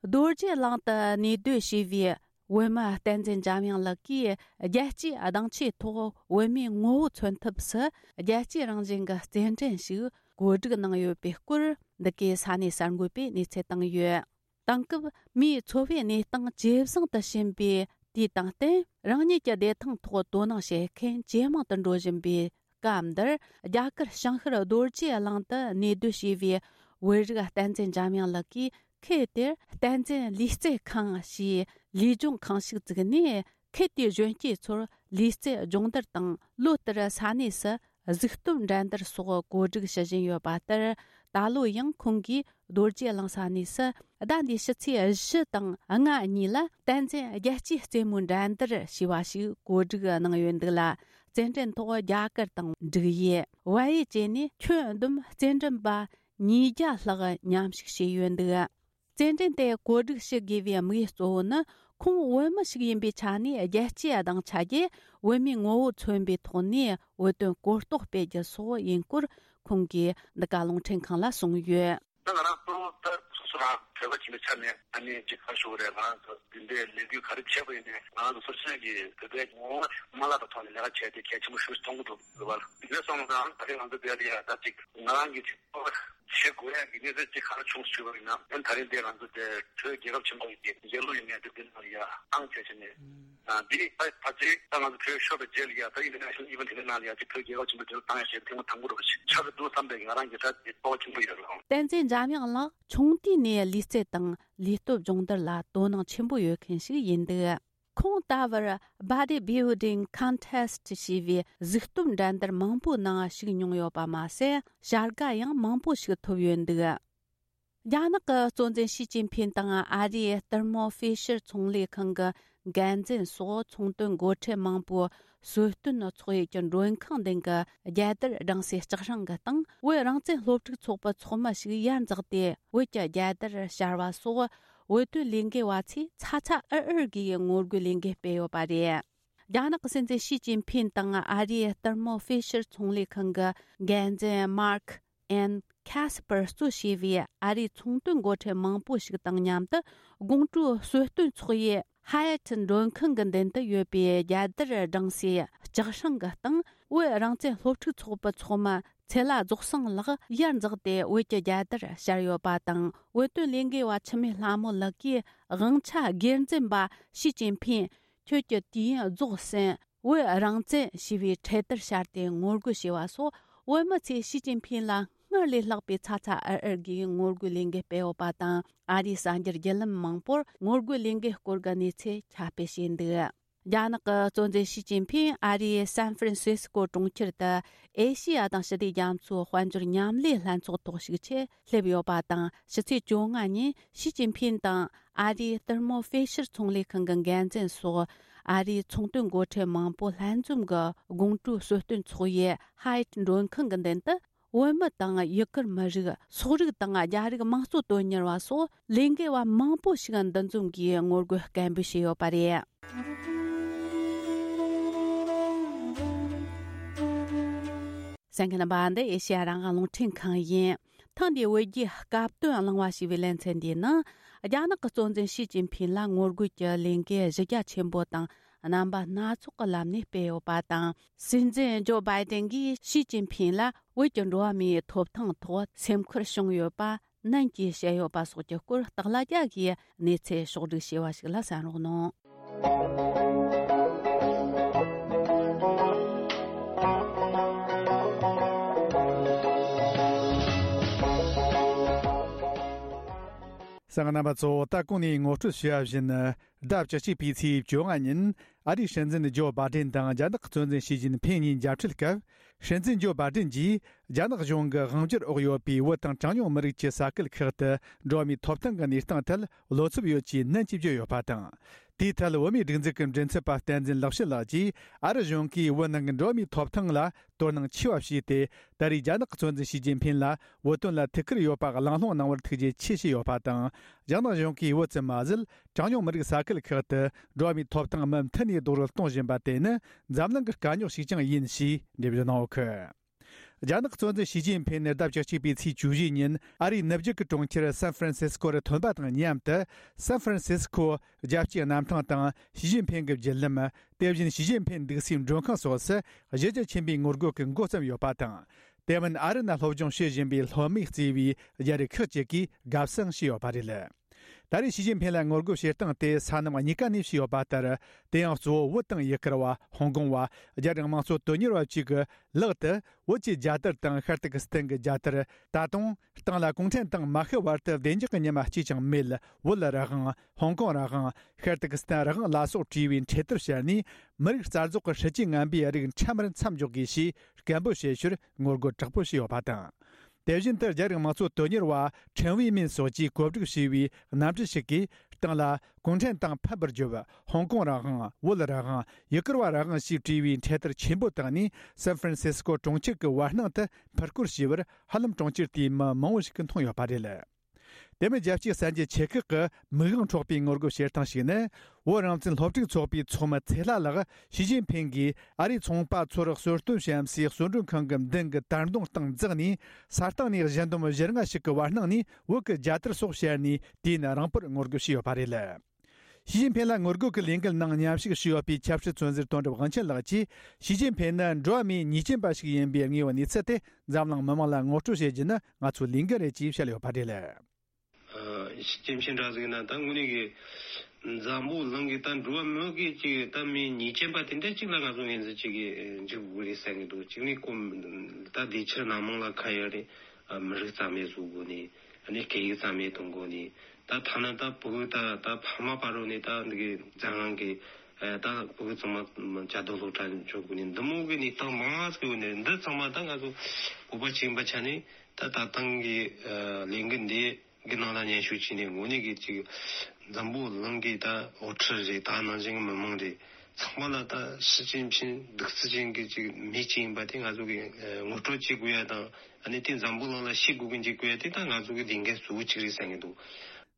རྡོ་རྗེ་གླིང་དུ་གནས་སྡོད་བྱས་པའི་བོད་མི་བསྟན་འཛིན་འཇམ་དབྱངས་ལགས་ཀྱིས། རྒྱལ་སྤྱིའི་གདེང་ཆའི་ཐོག་བོད་མིའི་ངོ་བོ་མཚོན་ཐབས་སུ། རྒྱལ་སྤྱིའི་རང་བཞིན་གྱི་རྩེད་འགྲན་ཞིག་གོ་སྒྲིག་གནང་ཡོད་པའི་སྐོར། འདི་གའི་ས་གནས་གསར་འགོད་པས་གནས་ཚུལ་བཏང་ཡོད། དེང་སྐབས་མིའི་འཚོ་བའི་གནས་སྟངས་ཇེ་བཟང་དུ་ཕྱིན་པའི་ དེའི་སྟེང་བརྟེན་རང་ཉིད་ཀྱི་བདེ་ཐང་ཐོག་དོ་སྣང་བྱེད་མཁན་ཇེ་མང་དུ་འགྲོ་བཞིན་པའི་སྐབས་འདིར། རྒྱ་གར་བྱང་ཤར་རྡོ་རྗེ་གླིང་དུ་གནས་སྡོད་བྱས་པའི་བོད་རིགས་བསྟན་འཛིན་འཇམ་དབྱངས་ལགས་ཀྱིས། ཁུལ་དེར་བསྟན་འཛིན་ལུས་རྩལ་ཁང་ཞེས་ལུས་སྦྱོང་ཁང་ཞིག་བཙུགས་ནས། ཁུལ་དེའི་གཞོན་སྐྱེས་ཚོར་ལུས་རྩལ་སྦྱོང་བརྡར་དང་། ལོ་ལྟར་ས་གནས་སུ་གཟིགས་རྟོན་འགྲན་བསྡུར་སོགས་གོ་སྒྲིག་ཞུ་བཞིན་ཡོད་པ་ལྟར། ད་ལོ་ཡང་ཁོང་གིས་རྡོ་རྗེ་གླིང་ས་གནས་སུ་ཟླ་འདིའི་ཕྱི་ཚེས་བཞི་དང་ལྔ་གཉིས་ལ་བསྟན་འཛིན་རྒྱལ་སྤྱིའི་རྩེད་མོའི་འགྲན་བསྡུར་ཞེས་པ་ཞིག་གོ་སྒྲིག་གནང་ཡོད་འདུག་ལ། རྩེད་འགྲན་ཐོག་རྒྱ་གར་དང་འབྲུག་ཡུལ། བལ་ཡུལ་བཅས་ནས་ཁྱོན་བསྡོམས་རྩེད་འགྲན་པ་ཉིས་བརྒྱ་ལྷག་མཉམ་ཞུགས་བྱས་ཡོད་འདུག། རྩེད་འགྲན་དེ་གོ་སྒྲིག་ཞུ་དགོས་པའི་དམིགས་ཡུལ་གཙོ་བོ་ནི། ཁོང་བོད་མི་ཞིག་ཡིན་པའི་ཆ་ནས། རྒྱལ་སྤྱིའི་སྡིངས་ཆ་བརྒྱུད་བོད་མིའི་ངོ་བོ་མཚོན་པའི་ཐོག་ནས་བོད་དོན་གོ་རྟོགས་སྤེལ་རྒྱུ་སོགས་ཡིན་སྐོར་ཁོང་གིས་འདི་ག་རླུང་འཕྲིན་ཁང་ལ་གསུངས་ཡོད། ད་ང་རང་གཙོ་བོ་ད་སོ་སོ་རང་བོད་པ་ཡིན་པའི་ཆ་ནས། ཨ་ནི་ཅིག་ག་རེ་ཞུ་དགོས་རེད། ང་རང་ཚོ་འདི་འདྲའི་ལས་འགུལ་ག་རེ་བྱས་པ་ཡིན་ནའི། ང་རང་ཚོ་སོ་སོ་གི་བོད་པའི་ངོ་བོ་མ་བརླག་པའི་ཐོག་ནས་ལས་ཀ་བྱས་ཏེ་གལ་ཆེན་པོ་ཞིག་མཐོང་གི་འདུག་ལ། དེ་འདྲ་སོང་ཙང་ད་རེས་ང་ཚོ་འདིར་ཡ་ད་ཅིག་ང་རང་གི་ཅིག་བྱེད་དགོས་ཡ་གི་གནས་ཚུལ་ཅིག་ག་རེ་བྱུང་ཞུས་པ་ཡིན་ན། ཨ་ནི་ད་རེས་འདི་ང་ཚོ་དེ་བོད་རྒྱལ་ཁབ་ཆེན་པོ་ཡི་གི་རྒྱལ་གླུ་ཡིན་ནའི་དེ་འདི་ནང་ཡ་བཏང་བྱས་བྱས་ནས། ཨ་འདི་ད་ད་ཅིག་ད་ང་ཚོ་བོད་ཤོར་བའི་རྗེས་ལ་ཡ་ད་ཨིན་ཊར་ནེ་ཤ་ནལ་ཨི་ཝེན་ཊི་འདི་ནང་ལ་ཡ་ཅིག་བོད་རྒྱལ་ཁབ་ཆེན་པོའི་དུས་ལ་བཏང་ཡ་ཞེས་ཐེངས་མ་དང་པོ་རེད་པ་ཞིག་ཆགས་ཀྱི་འདུག་བསམ་པའི་ང་རང་གི་ད་དེ་སྤོབས་པ་ཆེན་པོ་ཡོད་རེད། བསྟན་འཛིན་འཇམ་དབྱངས་ལགས་ཆུང་དུས་ནས་ལུས་རྩལ་དང་ལུས་སྟོབས་སྦྱོང་བརྡར་ལ་དོ་སྣང་ཆེན་པོ་ཡོད་མཁན་ཞིག་ཡིན་འདུག། ཁོང་ད་བར་Body Building Contest ཞེས་པའི་གཟུགས་སྟོབས་འགྲན་བསྡུར་མང་པོའི་ནང་ཞུགས་མྱོང་ཡོད་པ་མ་ཟད། བྱ་དགའ་ཡང་མང་པོ་ཞིག་ཐོབ་ཡོད་འདུག། རྒྱ་ནག་གི་གཙོ་འཛིན་ཞི་ཅིན་ཕིན་དང་ཨ་རིའི་ལྟད་མོ་ཧྥི་ཤར་ཚོང་ལས་ཁང་གི་འགན་འཛིན་སོགས་ཚོང་དོན་འགོ་ཁྲིད་མང་པོའི་གསོལ་སྟོན་ཚོགས་ཡུལ་གྱི་མགྲོན་ཁང་སྟེང་གི་རྒྱལ་དར་བསྒྲེངས་སའི་ལྕགས་སྲང་གི་སྟེང་། བོད་རང་བཙན་སློབ་ཕྲུག་ཚོགས་པའི་ཚོགས་མི་ཞིག་ཡར་འཛེགས་ཏེ། བོད་ཀྱི་རྒྱལ་དར་ཕྱར་བ་སོགས། བོད་དོན་ལས་འགུལ་བ་ཚོས་ཚ་ཚ་འུར་འུར་གྱིས་ངོ་རྒོལ་ལས་འགུལ་སྤེལ་ཡོད་པ་རེད། རྒྱ་ནག་གི་སྲིད་འཛིན་ཞི་ཅིན་ཕིན་དང་ཨ་རིའི་ལྟད་མོ་ཧྥི་ཤར་ཚོང་ལས་ཁང་གི་འགན་འཛིན་མར་ཁ་ཨན་ཁ་སི་པར་གཙོ་བྱས་པའི་ཨ་རིའི་ཚོང་དོན་འགོ་ཁྲིད་མང་པོ་ཞིག་དང་མཉམ་དུ། དགོང་དྲོའི་གསོལ་སྟོན་ཚོགས་ཡུལ་ཧ་ཡ་ཊི་མགྲོན་ཁང་གི་མདུན་དུ་ཡོད་པའི་རྒྱལ་དར་བསྒྲེངས་སའི་ལྕགས་སྲང་གི་སྟེང་། བོད་རང་བཙན་སློབ་ཕྲུག་ཚོགས་པའི་ཚོགས་མི་ཚེ་ལྷ་རྫོགས་སངས་ལགས་ཡར་འཛེགས་ཏེ་བོད་ཀྱི་རྒྱལ་དར་ཕྱར་ཡོད་པ་དང་། བོད་དོན་ལས་འགུལ་བ་འཆི་མེད་ལྷ་མོ་ལགས་ཀྱིས་དབང་ཆ་སྒེར་འཛིན་པ་ཞི་ཅིན་ཕིན། ཁྱོད་ཀྱི་དུས་ཡུན་རྫོགས་ཟིན། བོད་རང་བཙན་ཞེས་པའི་འཕྲེད་དར་ཕྱར་ཏེ་ངོ་རྒོལ་བྱས་པ་སོགས། བོད་མི་ཚོས་ཞི་ཅིན་ཕིན་ལ་སྔར་ལས་ལྷག་པའི་ཚ་ཚ་འུར་འུར་གྱིས་ངོ་རྒོལ་ལས་འགུལ་སྤེལ་ཡོད་པ་དང་། ཨ་རིའི་གསར་འགྱུར་བརྒྱུད་ལམ་མང་པོར་ངོ་རྒོལ་ལས་འགུལ་སྐོར་གྱི་གནས་ཚུལ་ཁྱབ་སྤེལ་བྱས་འདུག། རྒྱ་ནག་གི་གཙོ་འཛིན་ཞི་ཅིན་ཕིན་ཨ་རིའི་སན་ཧྥ་རན་སིས་ཀོ་གྲོང་ཁྱེར་དུ་ཨེ་ཤེ་ཡ་དང་ཞི་བདེ་རྒྱ་མཚོའི་དཔལ་འབྱོར་མཉམ་ལས་ལྷན་ཚོགས་ཐོག་ཞུགས་ཆེད་སླེབས་ཡོད་པ་དང་། ཕྱི་ཚེས་བཅོ་ལྔ་ཉིན་ཞི་ཅིན་ཕིན་དང་ཨ་རིའི་ལྟད་མོ་ཧྥེ་ཤར་ཚོང་ལས་ཁང་གི་འགན་འཛིན་སོགས། ཨ་རིའི་ཚོང་དོན་འགོ་ཁྲིད་མང་པོ་ལྷན་འཛོམས་ཀྱི་དགོང་དྲོའི་གསོལ་སྟོན་ཚོགས་ཡུལ་ཧ་ཡ་ཊི་མགྲོན་ཁང་གི་མདུན་དུ། བོད་མི་དང་ཡུ་གུར་མི་རིགས། སོག་རིགས་དང་རྒྱ་རིགས་དམངས་གཙོ་དོན་གཉེར་བ་སོགས་ལས་འགུལ་བ་མང་པོ་ཞིག་འདུ་འཛོམས་ཀྱིས་ངོ་རྒོལ་སྐད་འབོད་བྱས་ཡོད་པ་རེད། གསན་མཁན་རྣམ་པ། འདི་ཨེ་ཤེ་ཡ་རང་དབང་རླུང་འཕྲིན་ཁང་ཡིན། ཐེངས་འདིའི་བོད་རྒྱའི་སྐབས་དོན་གླེང་བ་ཞེས་པའི་ལེ་ཚན་འདིའི་ནང་། རྒྱ་ནག་གི་གཙོ་འཛིན་ཞི་ཅིན་ཕིན་ལ་ངོ་རྒོལ་གྱི་ལས་འགུལ་གཞི་རྒྱ་ཆེན་པོ་དང་རྣམ་པ་སྣ་ཚོགས་ཀྱི་ལམ་ནས་སྤེལ་ཡོད་པ་དང་། སྲིད་འཛིན་ཇོ་བྷའི་ཏན་གྱིས་ཞི་ཅིན་ཕིན་ལ་བོད་ཀྱི་འགྲོ་བ་མིའི་ཐོབ་ཐང་ཐོག་སེམས་ཁུར་བྱུང་ཡོད་པ་ནན་གྱིས་བཤད་ཡོད་པ་སོགས་ཀྱི་སྐོར་སྟག་ལྷ་རྒྱལ་གྱིས་གནས་ཚུལ་ཕྱོགས་བསྒྲིགས་བྱས་པ་ཞིག་ལ་གསན་རོགས་གནང་། གསན་མཁན་རྣམ་པ་ཚོ། ད་གོང་ནས་ངོ་སྤྲོད་བྱས་པ་བཞིན། ཟླ་བཅུ་གཅིག་པའི་ཚེས་བཅོ་ལྔ་ཉིན། ཨ་རིའི་སྲིད་འཛིན་ཇོ་བྷའི་ཏན་དང་རྒྱ་ནག་གི་གཙོ་འཛིན་ཞི་ཅིན་ཕིན་གཉིས་མཇལ་འཕྲད་སྐབས། སྲིད་འཛིན་ཇོ་བྷའི་ཏན་གྱིས། རྒྱ་ནག་གཞུང་གི་དབང་སྒྱུར་འོག་ཡོད་པའི་བོད་དང་གྲངས་ཉུང་མི་རིགས་ཀྱི་ས་ཁུལ་ཁག་ཏུ་འགྲོ་བ་མིའི་ཐོབ་ཐང་གི་གནས་སྟངས་ཐད་བློ་འཚབ་ཡོད་ཅེས་ནན་གྱིས་བརྗོད་ཡོད་པ་དང་། དེའི་ཐད་བོད་མིའི་སྒྲིག་འཛུགས་ཀྱི་མགྲིན་ཚབ་པ་བསྟན་འཛིན་ལེགས་བཤད་ལགས་ཀྱིས། ཨ་རི་གཞུང་གིས་བོད་ནང་གི་འགྲོ་བ་མིའི་ཐོབ་ཐང་ལ་དོ་སྣང་ཆེ་བ་བྱས་ཏེ། ད་རེས་རྒྱ་ནག་གི་གཙོ་འཛིན་ཞི་ཅིན་ཕིན་ལ་བོད་དོན་ལ་ཐུགས་ཁུར་ཡོད་པ་གླེང་སློང་གནང་བར་ཐུགས་རྗེ་ཆེ་ཞུས་ཡོད་པ་དང་། རྒྱ་ནག་གཞུང་གིས་བོད་ཙམ་མ་ཟད། གྲངས་ཉུང་མི་རིགས་ས་ཁུལ་ཁག་ཏུ་འགྲོ་བ་མིའི་ཐོབ་ཐང་མུ་མཐུད་ནས་རྡོག་རོལ་གཏོང་བཞིན་པ་དེ་ནི་འཛམ་གླིང་གི་དཀའ་རྙོག་ཞིག་ཀྱང་ཡིན་ཞེས་འགྲེལ་བརྗོད་གནང་ཡོད་ཀི། རྒྱ་ནག་གཙོ་འཛིན་ཞི་ཅིན་ཕིན་ནི་ཟླ་བཅུ་གཅིག་པའི་ཚེས་བཅུ་བཞི་ཉིན་ཨ་རིའི་ནུབ་རྒྱུད་ཀྱི་གྲོང་ཁྱེར་སན་ཧྥ་རན་སིས་ཀོ་རུ་ཐོན་པ་དང་མཉམ་དུ། སན་ཧྥ་རན་སིས་ཀོ་རྒྱལ་སྤྱིའི་གནམ་ཐང་དང་ཞི་ཅིན་ཕིན་གྱི་བརྒྱུད་ལམ། དེ་བཞིན་ཞི་ཅིན་ཕིན་འདུག་སའི་མགྲོན་ཁང་སོགས་སུ་གཞི་རྒྱ་ཆེན་པོའི་ངོ་རྒོལ་གྱི་འགོ་བརྩམས་ཡོད་པ་དང་། དེ་མིན་ཨ་རི་ནང་སློབ་སྦྱོང་བྱེད་བཞིན་པའི་སློབ་མས་གཙོས་པའི་རྒྱ་རིགས་ཁག་ཅིག་གིས་དགའ་བསུ་ཞུས་ཡོད་པ་རེད། ད་རེས་ཞི་ཅིན་ཕིན་ལ་ངོ་རྒོལ་བྱེད་སྟངས་དེ་ས་མཚམས་གཉིས་ཀ་ནས་བྱས་ཡོད་པ་ལྟར། དེ་ཡང་གཙོ་བོ་བོད་དང་ཡུ་གུར་བ། ཧོང་ཀོང་བ། རྒྱ་རིགས་དམངས་གཙོ་དོན་གཉེར་བ་བཅས་ཀྱི་ལག་ཏུ་བོད་ཀྱི་རྒྱལ་དར་དང་ཤར་ཏུར་ཀི་སི་ཐན་གྱི་རྒྱལ་དར། ད་དུང་སྟེང་ལ་གུང་ཁྲན་ཏང་མ་ཤི་བར་དུ་བདེ་འཇགས་ཀྱི་ཉི་མ་གཅིག་ཀྱང་མེད། བོད་རང་དབང་། ཧོང་ཀོང་རང་དབང་། ཤར་ཏུར་ཀི་སི་ཐན་རང་དབང་ལ་སོགས་བྲིས་པའི་འཕྲེད་དར་ཕྱར་ནས། མི་རིགས་རྩ་རྫོགས་ཀྱི་སྲིད་ཇུས་ངན་པའི་རིགས་འཕྲལ་མར་མཚམས་འཇོག་དགོས་ཞེས་སྐད་འབོད་བྱེད་ཕྱིར་ངོ་རྒོལ་དྲག་པོ་བྱས་ཡོད་པ་དང་། དེ་བཞིན་དུ་རྒྱ་རིགས་དམངས་གཙོ་དོན་གཉེར་བ་ཁྲེན་ཝེ་མིན་སོགས་ཀྱིས་གོ་སྒྲིག་བྱས་པའི་གནམ་གྲུ་ཞིག་གིས་སྟེང་ལ་གུང་ཁྲན་ཏང་ཕམ་པར་བརྗོད། ཧོང་ཀོང་རང་དབང་། བོད་རང་དབང་། ཡུ་གུར་བ་རང་དབང་ཞེས་བྲིས་པའི་འཕྲེད་དར་ཆེན་པོ་བཏང་ནས། སན་ཧྥ་རན་སིས་ཀོ་གྲོང་ཁྱེར་གྱི་བར་སྣང་དུ་འཕུར་སྐོར་བྱས་པར། ཧ་ལམ་གྲོང་ཁྱེར་དེའི་མི་མང་བོ་ཞིག་གིས་མཐོང་ཡོད་པ་རེད། དེ་མིན། རྒྱལ་སྤྱིའི་གསར་འགྱུར་ཆེ་ཁག་གིས་མིག་དབང་འཕྲོག་པའི་ངོ་རྒོལ་བྱེད་སྟངས་ཤིག་ནི། བོད་རང་བཙན་སློབ་ཕྲུག་ཚོགས་པའི་ཚོགས་མི་ཚེ་ལྷ་ལགས་ཞི་ཅིན་ཕིན་གྱིས་ཨ་རིའི་ཚོང་པ་ཚོར་གསོལ་སྟོན་བྱེད་སའི་གསོལ་མགྲོན་ཁང་གི་མདུན་གྱི་དར་མདུང་སྟེང་འཛེགས་ནས། ས་སྟེང་ནས་གཞལ་འདུམ་བཞི་ལྔ་ཞིག་གི་བར་སྣང་ནས་བོད་ཀྱི་རྒྱལ་དར་སོགས་ཕྱར་ནས། དུས་ཡུན་རིང་པོར་ངོ་རྒོལ་བྱས་ཡོད་པ་རེད། ཞི་ཅིན་ཕིན་ལ་ངོ་རྒོལ་གྱི་ལས་འགུལ་ནང་མཉམ་ཞུགས་བྱས་ཡོད་པའི་ཆབ་སྲིད་བཙོན་ཟུར་དོན་གྲུབ་དབང་ཆེན་ལགས་ཀྱིས། ཞི་ཅིན་ཕིན་ནི་འགྲོ་བ་མིའི་ཉེས་ཅན་པ་ཞིག་ཡིན་པའི་ངོས་ནས་གནས་ཚུལ་དེ་འཛམ་གླིང་མི་མང་ལ་ངོ་སྤྲོད་བྱེད་རྒྱུ་ནི་ང་ཚོའི་ལས་འགན་རེད་ཅེས་བཤད་ཡོད་པ་རེད། ཨ། ཞི་ཅིན་ཕིན་འདྲ་ཟིག་ན་ད་དངོས་གནས་ཀྱི་འཛམ་བུ་གླིང་གི་ད་འགྲོ་བ་མི་གི་ཅིག་ད་མིའི་ཉེས་ཅན་པ་དེ་འདྲ་ཅིག་ལ་ང་ཚོ་ངོས་འཛིན་བྱེད་ཀྱི་འཇུག་དགོས་རེད་བསམ་གྱི་འདུག་གཅིག་ནས་ཁོ་ད་དེ་ཕྱིར་སྣ་མང་ལ་ཁ་ཡོད་རེད། ཨ། མི་རིགས་རྩ་མེད་བཟོ་དགོས་ནས། ཨ་ནི་སྐད་ཡིག་རྩ་མེད་གཏོང་དགོས་ནས། ད་ཐ་ན་ད་བོད་ད་ད་ཕ་མ་བར་རོ་ནས་ད་འདི་གི་འཛམ་གླིང་གི་ཨ་ད་བོད་ཚང་མ་བཅའ་སྡོད་སློབ་གྲྭ་འཇོག་དགོས་ནས། འདི་མོ་གི་གནས་སྟངས་མང་ཟིག་ཡོད་ནས། འདི་ཚང་མ་ད་ང་ཚོ་བོད་པ་ཅིག་ཡིན་པ་ཆ་ནས། ད་ད་ཐེངས་ཀྱི་ཨ་ལས་འགུལ་འདི་གི་ནང་ལ་མཉམ་ཞུགས་བྱས་ནས། དངོས་གནས་ཀྱི་ཅིག་འཛམ་བུ་གླིང་གི་ད་དབུ་ཁྲིད་རེད། ད་ནང་བཞིན་གྱི་མི་མང་རེད། ཚང་མ་ལ་ད་ཞི་ཅིན་ཕིན་གདུག་རྩུབ་ཅན་གྱི་ཅིག་མི་ཅིག་ཡིན་པ་དེ་ང་ཚོ་གིས་ཨ་ངོ་སྤྲོད་བྱེད་དགོས་ཡ་དང་། ཨ་ནི་དེ་འཛམ་བུ་གླིང་ལ་ཤེས་དགོས་ཀྱི་འཇུག་དགོས་ཡ་དེ་ད་ང་ཚོ་གི་ལས་འགན་གཙོ་བོ་གཅིག་རེད་བསམ་གྱི་འདུག་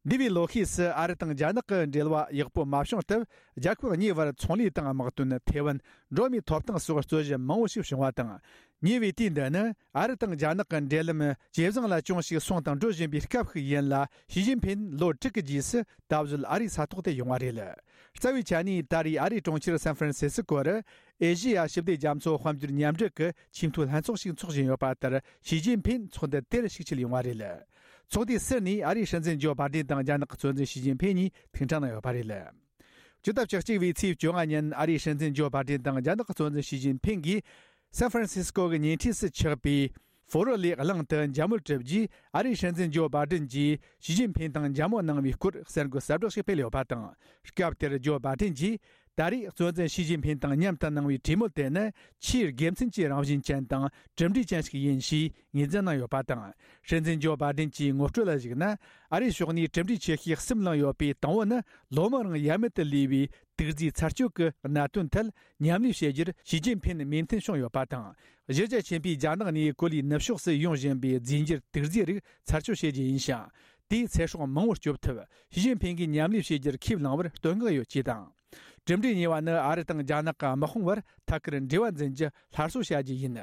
འདས་པའི་ལོ་ཤས་སུ་ཨ་རི་དང་རྒྱ་ནག་གི་འབྲེལ་བ་ཡག་པོ་མ་བྱུང་སྟབས། རྒྱལ་ཁབ་གཉིས་བར་ཚོང་ལས་དང་དམག་དོན། ཐའེ་ཝན། འགྲོ་བ་མིའི་ཐོབ་ཐང་སོགས་རྩོད་གཞི་མང་བོ་ཞིག་བྱུང་བ་དང་། ཉེ་བའི་དུས་འདི་ནི་ཨ་རི་དང་རྒྱ་ནག་གི་འབྲེལ་ལམ་ཇེ་བཟང་ལ་ཅུང་ཞིག་སོང་དང་འགྲོ་བཞིན་པའི་སྐབས་ཤིག་ཡིན་ལ། ཞི་ཅིན་ཕིན་ལོ་དྲུག་གི་རྗེས་སུ་ད་གཟོད་ཨ་རིའི་ས་ཐོག་ཏུ་ཡོང་བ་རེད། རྩ་བའི་ཆ་ནས་ད་རེས་ཨ་རིའི་གྲོང་ཁྱེར་སན་ཧྥ་རན་སི་སི་ཀོ་རུ་ཨེ་ཤེ་ཡ་ཞི་བདེ་རྒྱ་མཚོ་དཔལ་འབྱོར་མཉམ་འབྲེལ་གྱི་ཆེས་མཐོའི་ལྷན་ཚོགས་ཤིག་འཚོགས་བཞིན་ཡོད་པ་ལྟར། ཞི་ཅིན་ཕིན་ཚོགས་འདུ་དེར་ཞིག་ཆེད་ཡོང་བ་རེད། ཚོགས་འདུའི་ཟུར་ནས་ཨ་རིའི་སྲིད་འཛིན་ཇོ་བྷ་ཏན་དང་རྒྱ་ནག་གི་གཙོ་འཛིན་ཞི་ཅིན་ཕིན་གཉིས་ཐུག་འཕྲད་གནང་ཡོད་པ་རེད། ཇུ་ཏ་བཅུ་གཅིག་པའི་ཚེས་བཅོ་ལྔ་ཉིན་ཨ་རིའི་སྲིད་འཛིན་ཇོ་བྷ་ཏན་དང་རྒྱ་ནག་གི་གཙོ་འཛིན་ཞི་ཅིན་ཕིན་གྱིས་སན་ཧྥ་རན་སིས་ཀོ་གི་ཉེ་འཁྲིས་སུ་ཆགས་པའི་ཧྥོ་རོ་ལེ་གླིང་དུ་འཇབ་རྨོལ་གྲུབ་རྗེས། ཨ་རིའི་སྲིད་འཛིན་ཇོ་བྷ་ཏན་གྱིས་ཞི་ཅིན་ཕིན་དང་འཇབ་རྨོལ་གནང་བའི་སྐོར་གསར་འགོད་གསལ་བསྒྲགས་ཤིག་སྤེལ་ཡོད་པ་དང་། སྐབས་དེར་ཇོ་བྷ་ཏན་གྱིས། ད་རེས་གཙོ་འཛིན་ཞི་ཅིན་ཕིན་དང་མཉམ་དུ་གནང་བའི་གྲོས་མོལ་དེ་ནི་ཆེས་དགེ་མཚན་གྱི་རང་བཞིན་ཅན་དང་གྲུབ་འབྲས་ཅན་ཞིག་ཡིན་ཞེས་ངོས་འཛིན་གནང་ཡོད་པ་དང་། སྲིད་འཛིན་ཇོ་བྷ་ཏན་གྱིས་ངོ་སྤྲོད་ལ་གཞིགས་ན། ཨ་རིའི་ཕྱོགས་ནས་གྲུབ་འབྲས་ཆེ་ཤོས་གསུམ་བླངས་ཡོད་པའི་དང་པོ་ནི། ལོ་མང་རིང་ཡ་མེད་དུ་ལུས་པའི་དུག་རྫས་ཚར་གཅོད་ཀྱི་གནད་དོན་ཐད་མཉམ་ལས་བྱེད་རྒྱུར་ཞི་ཅིན་ཕིན་མོས་མཐུན་བྱུང་ཡོད་པ་དང་། གཞིས་རྒྱ་ཆེན་པོས་རྒྱ་ནག་ནས་གོ་ལའི་ནུབ་ཕྱོགས་སུ་ཡོང་བཞིན་པའི་རྫས་འགྱུར་དུག་རྫས་རིགས་ཚར་གཅོད་བྱེད་རྒྱུ་ཡིན་ཞིང་། དེས་ཚེ་སྲོག་མང་བོར་སྐྱོབ་ཐུབ། ཞི་ཅིན་ཕིན་གྱིས་མཉམ་ལས་བྱེད་རྒྱུར་ཁས་བླངས་པར་བསྟོད་བསྔགས་ཡོད་ཅེས་དང་། གྲུབ་འབྲས་གཉིས་པ་ནི། ཨ་རི་དང་རྒྱ་ནག་གི་དམག་དཔུང་བར་ཐད་ཀར་འབྲེལ་བ་འཛིན་རྒྱུ་སླར་གསོ་བྱ་རྒྱུ་ཡིན།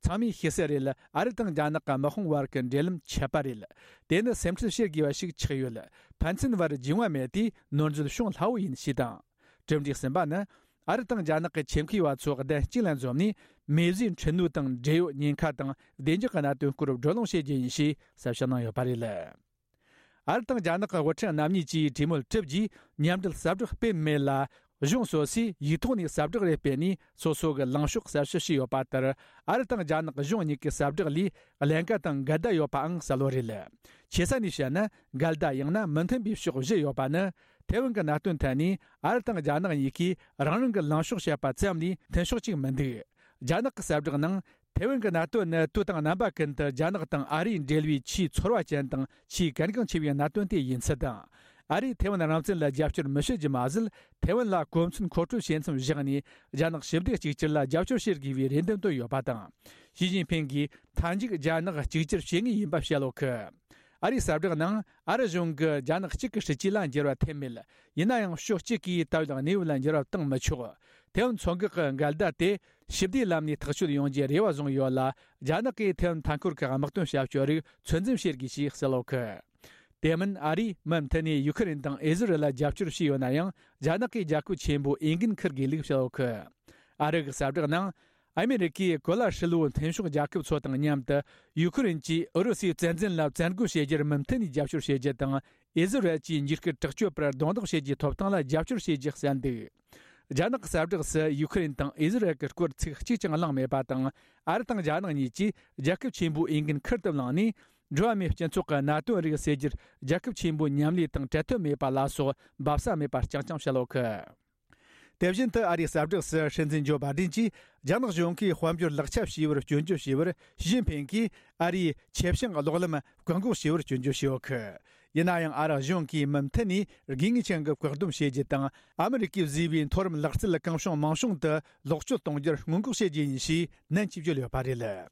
ཚང་མས་ཤེས་གསལ་རེད། ཨ་རི་དང་རྒྱ་ནག་གི་དམག་དཔུང་བར་གྱི་འབྲེལ་ལམ་ཆད་པ་རེད། དེ་ནི་སེམས་ཁྲལ་བྱེད་དགོས་པ་ཞིག་ཆགས་ཡོད། ཕན་ཚུན་བར་རྒྱུས་མངའ་མེད་དུས་ནོར་འཛོལ་བྱུང་སླ་བོ་ཡིན་ཞེས་དང་། གྲུབ་འབྲས་གསུམ་པ་ནི། ཨ་རི་དང་རྒྱ་ནག་གི་ཆེད་མཁས་པ་ཚོ་གདན་གཅིག་ལ་འཛོམས་ནས། མེ་བཟོའི་འཕྲུལ་སྣོད་དང་འབྲེལ་ཡོད་ཉེན་ཁ་དང་བདེ་འཇགས་ཀྱི་གནད་དོན་སྐོར་བགྲོ་གླེང་བྱེད་རྒྱུ་ཡིན་ཞེས་གསལ་བཤད་གནང་ཡོད་པ་རེད། ཨ་རི་དང་རྒྱ་ནག་གི་དབུ་ཁྲིད་རྣམ་གཉིས་ཀྱིས་གྲོས་མོལ་གྲུབ་རྗེས་མཉམ་འབྲེལ་གསལ་བསྒྲགས་སྤེལ་མེད་ལ། གཞུང་སོ་སོས་ཡིག་ཐོག་ནས་གསལ་བསྒྲགས་རེ་སྤེལ་ནས། སོ་སོ་གི་ལངས་ཕྱོགས་གསལ་བཤད་བྱས་ཡོད་པ་ལྟར། ཨ་རི་དང་རྒྱ་ནག་གཞུང་གཉིས་ཀྱི་གསལ་བསྒྲགས་ལས་ཀླན་ཀ་དང་འགལ་ཟླ་ཡོད་པའང་གསལ་བོ་རེད། ཆེ་ས་ནས་བཤད་ན། འགལ་ཟླ་ཡང་ན་མི་མཐུན་པའི་ཕྱོགས་བཞི་ཡོད་པ་ནི། ཐའེ་ཝན་གྱི་གནད་དོན་ཐད་ནས་ཨ་རི་དང་རྒྱ་ནག་གཉིས་ཀས་རང་རང་གི་ལངས་ཕྱོགས་བཤད་པ་ཙམ་ལས་མཐུན་ཕྱོགས་གཅིག་མི་འདུག་རྒྱ་ནག་གི་གསལ་བསྒྲགས་ནང་། ཐའེ་ཝན་གྱི་གནད་དོན་ནི་དུས་དང་རྣམ་པ་ཀུན་ཏུ་རྒྱ་ནག་དང་ཨ་རིའི་འབྲེལ་བའི་ཆེས་ཚོར་བ་ཅན་དང་ཆེས་གལ་འགངས་ཆེ་བའི་གནད་དོན་དེ་ཡིན་ཚུལ་དང་། ཨ་རིས་ཐའེ་ཝན་རང་བཙན་ལ་རྒྱབ་སྐྱོར་མི་བྱེད་རྒྱུ་མ་ཟད། ཐའེ་ཝན་ལ་གོ་མཚོན་མཁོ་སྤྲོད་བྱེད་མཚམས་བཞག་ནས། རྒྱ་ནག་ཞི་བདེ་གཅིག་གྱུར་ལ་རྒྱབ་སྐྱོར་བྱེད་དགོས་པའི་རེ་འདུན་བཏོན་ཡོད་པ་དང་། ཞི་ཅིན་ཕིན་གྱིས་མཐའ་མཇུག་རྒྱ་ནག་གཅིག་གྱུར་བྱེད་ངེས་ཡིན་པ་བཤད་ཡོད་གི། ཨ་རིའི་གསལ་བསྒྲགས་ནང་། ཨ་རི་གཞུང་གིས་རྒྱ་ནག་གཅིག་གི་སྲིད་ཇུས་ལ་འགྱུར་བ་ཐེབས་མེད། ཡིན་ན་ཡང་ཕྱོགས་གཅིག་གིས་ད་ཡོད་གནས་བབ་ལ་འགྱུར་བ་བཏང་མི་ཆོག་ཐའེ་ཝན་མཚོ་འགག་གི་འགལ་ཟླ་དེ་ཞི་བདེའི་ལམ་ནས་ཐག་གཅོད་ཡོང་རྒྱུའི་རེ་བ་བཟུང་ཡོད་ལ། རྒྱ་ནག་གིས་ཐའེ་ཝན་མཐའ་འཁོར་གྱི་དམག་དོན་ཞབས་ཞུ་རིགས་ཚོད་འཛིན་བྱེད་དགོས་ཞེས་གསལ་ཡོད་གི། དེ་མིན། ཨ་རིས་མུ་མཐུད་ནས་ཡུ་ཁུ་རེན་དང་ཨི་ཟི་རེལ་ལ་རྒྱབ་སྐྱོར་བྱས་ཡོད་ན་ཡང་། རྒྱ་ནག་གིས་རྒྱལ་ཁབ་ཆེན་པོ་འོས་འགན་འཁུར་དགོས་ལུགས་བཤད་ཡོད་གི། ཨ་རི་གི་གསལ་བསྒྲགས་ནང་། ཨ་མེ་རི་ཀས་གོ་ལ་ཧྲིལ་བོའི་མཐུན་ཕྱོགས་རྒྱལ་ཁབ་ཚོ་དང་མཉམ་དུ་ཡུ་ཁུ་རེན་གྱིས་ཨུ་རུ་སུའི་བཙན་འཛུལ་ལ་བཙན་རྒོལ་བྱེད་རྒྱུར་མུ་མཐུད་ནས་རྒྱབ་སྐྱོར་བྱེད་རྒྱུ་དང་། ཨི་ཟི་རལ་གྱིས་འཇིགས་སྐུལ་དྲག་སྤྱོད་པར་རྡུང་རྡེག་བྱེད་རྒྱུའི་ཐོབ་ཐང་ལ་རྒྱབ་སྐྱོར་བྱེད་རྒྱུ་གསལ་འདུག་རྒྱ་ནག་གི་གསལ་བསྒྲགས་སུ་ཡུ་ཁུ་རེན་དང་ཨི་ཟི་རལ་གྱི་སྐོར་ཚིག་གཅིག་ཀྱང་གླེང་མེད་པ་དང་། ཨ་རི་དང་རྒྱ་ནག་གཉིས་ཀྱིས་རྒྱལ་ཁབ་ཆེན་པོའི་འོས་འགན་ཁུར་དུ་བླངས་ནས། འགྲོ་བ་མིའི་སྤྱི་ཚོགས་ཀྱི་གནད་དོན་རིགས་སེལ་རྒྱུར་རྒྱལ་ཁབ་ཆེན་པོའི་མཉམ་ལས་དང་བྲལ་ཐབས་མེད་པ་ལ་སོགས་འབབ་ས་མེད་པ་རྐྱང་རྐྱང་བཤད་ཡོད་གི། དེ་བཞིན་དུ་ཨ་རིའི་གསལ་བསྒྲགས་སུ་སྲིད་འཛིན་ཇོ་བྷ་ཌེན་གྱིས་རྒྱ་ནག་གཞུང་གིས་དཔལ་འབྱོར་ལག་ཆ་བྱས་པར་སྐྱོན་བརྗོད་བྱས་པར། ཞི་ཅིན་ཕིང་གིས་ཨ་རིའི་ཆེད་བྱུང་གློག་ལམ་བཀག་འགོག་བྱས་པར་སྐྱོན་བརྗོད་བྱས་ཡོད་གི། ཡིན་ན་ཡང་ཨ་རི་གཞུང་གིས་མུ་མཐུད་ནས་དགོས་ངེས་ཅན་གྱི་བཀག་སྡོམ་བྱེད་རྒྱུ་དང་། ཨ་མི་རི་ཀས་བཟོས་པའི་མཐོ་རིམ་ལག་རྩལ་གང་བྱུང་མང་བྱུང་དུ་ལོག་སྤྱོད་གཏོང་རྒྱུར་སྔོན་འགོག་བྱེད་རྒྱུ་ཡིན་ཞེས་ནན་གྱིས་བརྗོད་ཡོད་པ་རེད།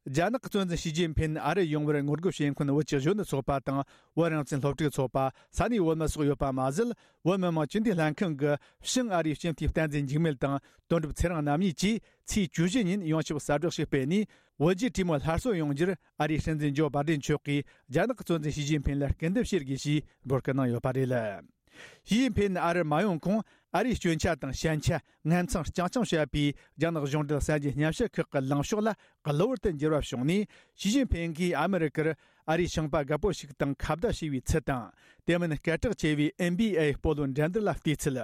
རྒྱ་ནག་གི་གཙོ་འཛིན་ཞི་ཅིན་ཕིན་ཨ་རི་ཡོང་བར་ངོ་རྒོལ་བྱེད་མཁན་བོད་ཀྱི་གཞོན་ནུ་ཚོགས་པ་དང་། བོད་རང་བཙན་སློབ་ཕྲུག་ཚོགས་པ། ས་གནས་བོད་མི་སོགས་ཡོད་པ་མ་ཟད། བོད་མི་མང་སྤྱི་འཐུས་ལྷན་ཁང་གི་ཕྱི་ཨ་རིའི་སྤྱི་འཐུས་བསྟན་འཛིན་འཇིགས་མེད་དང་། དོན་གྲུབ་ཚེ་རིང་རྣམ་གཉིས་ཀྱིས་ཚེས་བཅུ་བཞི་ཉིན་ཡོངས་ཁྱབ་གསལ་བསྒྲགས་ཤིག་སྤེལ་ནས། བོད་རྒྱའི་གྲོས་མོལ་སླར་གསོ་ཡོང་རྒྱུར་ཨ་རིའི་སྲིད་འཛིན་ཇོ་བྷ་ཌེན་མཆོག་གིས་རྒྱ་ནག་གི་གཙོ་འཛིན་ཞི་ཅིན་ཕིན་ལ་སྐུལ་འདེབས་བྱེད་དགོས་ཞེས་འབོད་སྐུལ་གནང་ཡོད་པ་རེད། ཞི་ཅིན་ཕིན་ཨ་རི་མ་ཡོང་གོང་། ཨ་རིའི་སྐྱོན་ཆ་དང་ཞན་ཆ་ངན་མཚང་རྐྱང་རྐྱང་བཤད་པའི་རྒྱ་ནག་གཞུང་འབྲེལ་གསར་འགྱུར་སྙན་ཞུ་ཁག་གི་ལངས་ཕྱོགས་ལ་གློ་བུར་དུ་འགྱུར་བ་བྱུང་ནས། ཞི་ཅིན་ཕིན་གྱིས་ཨ་མི་རི་ཀར་ཨ་རིའི་ཞིང་པ་རྒད་པོ་ཞིག་དང་ཁ་བརྡ་བྱས་པའི་ཚུལ་དང་། དེ་མིན་སྐད་གྲགས་ཆེ་བའི་ཨེན་བྷི་ཨེ་སྤོ་ལོ་འགྲན་བསྡུར་ལ་བལྟས་ཚུལ།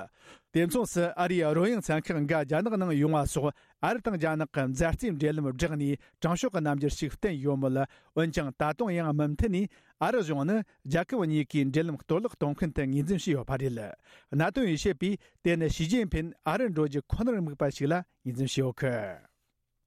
དེ་མཚུངས་སུ་ཨ་རིའི་རོལ་དབྱངས་ཚན་ཁག་འགའ་རྒྱ་ནག་ནང་ཡོང་བ་སོགས། ཨ་རི་དང་རྒྱ་ནག་གི་མཛའ་བརྩེའི་འབྲེལ་ལམ་བསྒྲགས་ནས་དྲང་ཕྱོགས་ཀྱི་རྣམ་འགྱུར་ཞིག་བསྟན་ཡོད་མོད། འོན་ཀྱང་ད་དུང་ཡང་མུ་མཐུད་ནས་ཨ་རི་གཞུང་ནི་རྒྱལ་ཁབ་གཉིས་ཀའི་འབྲེལ་ལམ་གཏོར་བརླག་གཏོང་མཁན་དུ་ངོས་འཛིན་བྱས་ཡོད་པ་རེད། གནད་དོན་ཡོད་བཤད་པས་དེ་ནི་ཞི་ཅིན་ཕིན་ཨ་རི་འགྲོ་རྒྱུ་ཁོ་ནར་དམིགས་པ་ཞིག་ལ་ངོས་འཛིན་བྱས་ཡོད་གི།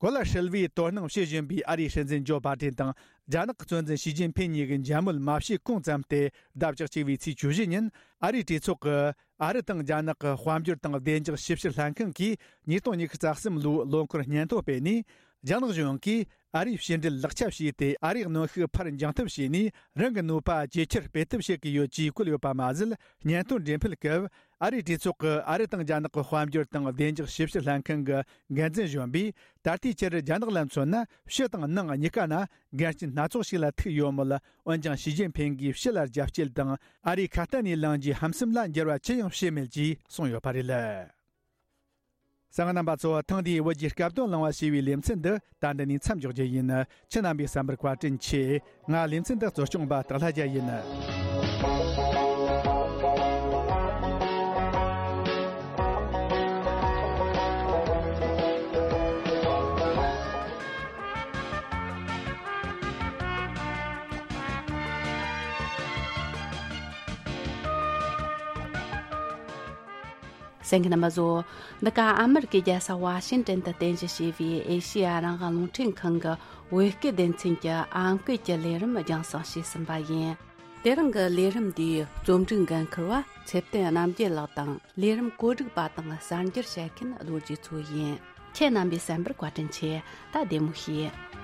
གོ་ལ་ཧྲིལ་བོའི་དོ་སྣང་བྱེད་བཞིན་པའི་ཨ་རིའི་སྲིད་འཛིན་ཇོ་བྷ་ཌེན་དང་རྒྱ་ནག་གི་གཙོ་འཛིན་ཞི་ཅིན་ཕིན་གཉིས་ཀྱི་མཇལ་མོལ་མ་བྱས་གོང་ཙམ་སྟེ། ཟླ་བཅུ་གཅིག་པའི་ཚེས་བཅུ་བཞི་ཉིན་ཨ་རིའི་གྲོས་ཚོགས་ཀྱི་ཨ་རི་དང་རྒྱ་ནག་གི་དཔལ་འབྱོར་དང་བདེ་འཇགས་ཞིབ་བཤེར་ལྷན་ཁང་གིས་ཉིས་སྟོང་ཉི་ཤུ་རྩ་གསུམ་ལོའི་ལོ་འཁོར་སྙན་ཐོ་སྤེལ་ནས། རྒྱ་ནག་གཞུང་གིས་ཨ་རིའི་ཕྱི་འབྲེལ་ལག་ཆ་བྱས་ཏེ། ཨ་རིའི་གནོན་ཤུགས་ཕར་འགྱངས་ཐབས་བྱས་ནས། རང་གི་ནུས་པ་ཇེ་ཆེར་སྤེལ་ཐབས་བྱེད་ཀྱི་ཡོད་ཅེས་བཀོད་ཡོད་པ་མ་ཟད། སྙན་ཐོ་འགྲེམས་སྤེལ་སྐབས། ཨ་རིའི་གྲོས་ཚོགས་ཀྱི་ཨ་རི་དང་རྒྱ་ནག་གི་དཔལ་འབྱོར་དང་བདེ་འཇགས་ཞིབ་བཤེར་ལྷན་ཁང་གི་འགན་འཛིན་གཞོན་པས། ད་ལྟའི་ཆར་རྒྱ་ནག་ལ་མཚོན་ན། ཕྱི་དང་ནང་གཉིས་ཀ་ན་འགལ་རྐྱེན་སྣ་ཚོགས་ཤིག་ལ་ཐུག་ཡོད་མོད། འོན་ཀྱང་ཞི་ཅིན་ཕིན་གྱིས་ཕྱི་ལ་རྒྱ་སྐྱེད་དང་། ཨ་རིའི་ཁ་གཏན་ནས་ལངས་རྒྱུའི་ཧམ་སེམས་ལ་འགྱུར་བ་ཅི་ཡང་བྱས་མེད་ཅེས་གསུངས་ཡོད་པ་རེད། གསན་མཁན་རྣམ་པ་ཚོ། ཐེངས་འདིའི་བོད་ཀྱི་སྐབས་དོན་གླེང་བ་ཞེས་པའི་ལེ་ཚན་འདི་ད་འདི་ནས་མཚམས་འཇོག་རྒྱུ་ཡིན། ཁྱེད་རྣམ་པས་གསན་པར་བཀའ་དྲིན་ཆེ། ང་ལེ་ཚན་འདི་གཙོ་སྐྱོང་པ་སྟག་ལྷ་རྒྱལ་ཡིན། གསན་མཁན་རྣམ་པ་ཚོ། འདི་ག་ཨ་མི་རི་ཀའི་རྒྱལ་ས་ཝ་ཤིང་ཏན་དུ་རྟེན་གཞི་བྱས་པའི་ཨེ་ཤེ་ཡ་རང་དབང་རླུང་འཕྲིན་ཁང་གི་བོད་སྐད་སྡེ་ཚན་གྱི་ཨམ་སྐད་ཀྱི་ལས་རིམ་རྒྱང་སྲིང་བྱས་ཟིན་པ་ཡིན། དེ་རིང་གི་ལས་རིམ་འདིའི་རྩོམ་སྒྲིག་འགན་འཁུར་བ་ཚེ་བརྟན་རྣམ་རྒྱལ་ལགས་དང་། ལས་རིམ་གོ་སྒྲིག་པ་དང་གསར་འགྱུར་བཤད་མཁན་རྡོ་རྗེ་མཚོ་ཡིན། ཁྱེད་རྣམ་པས་གསན་པར་བཀའ་དྲིན་ཆེ། ད་བདེ་མོ་བྱོས།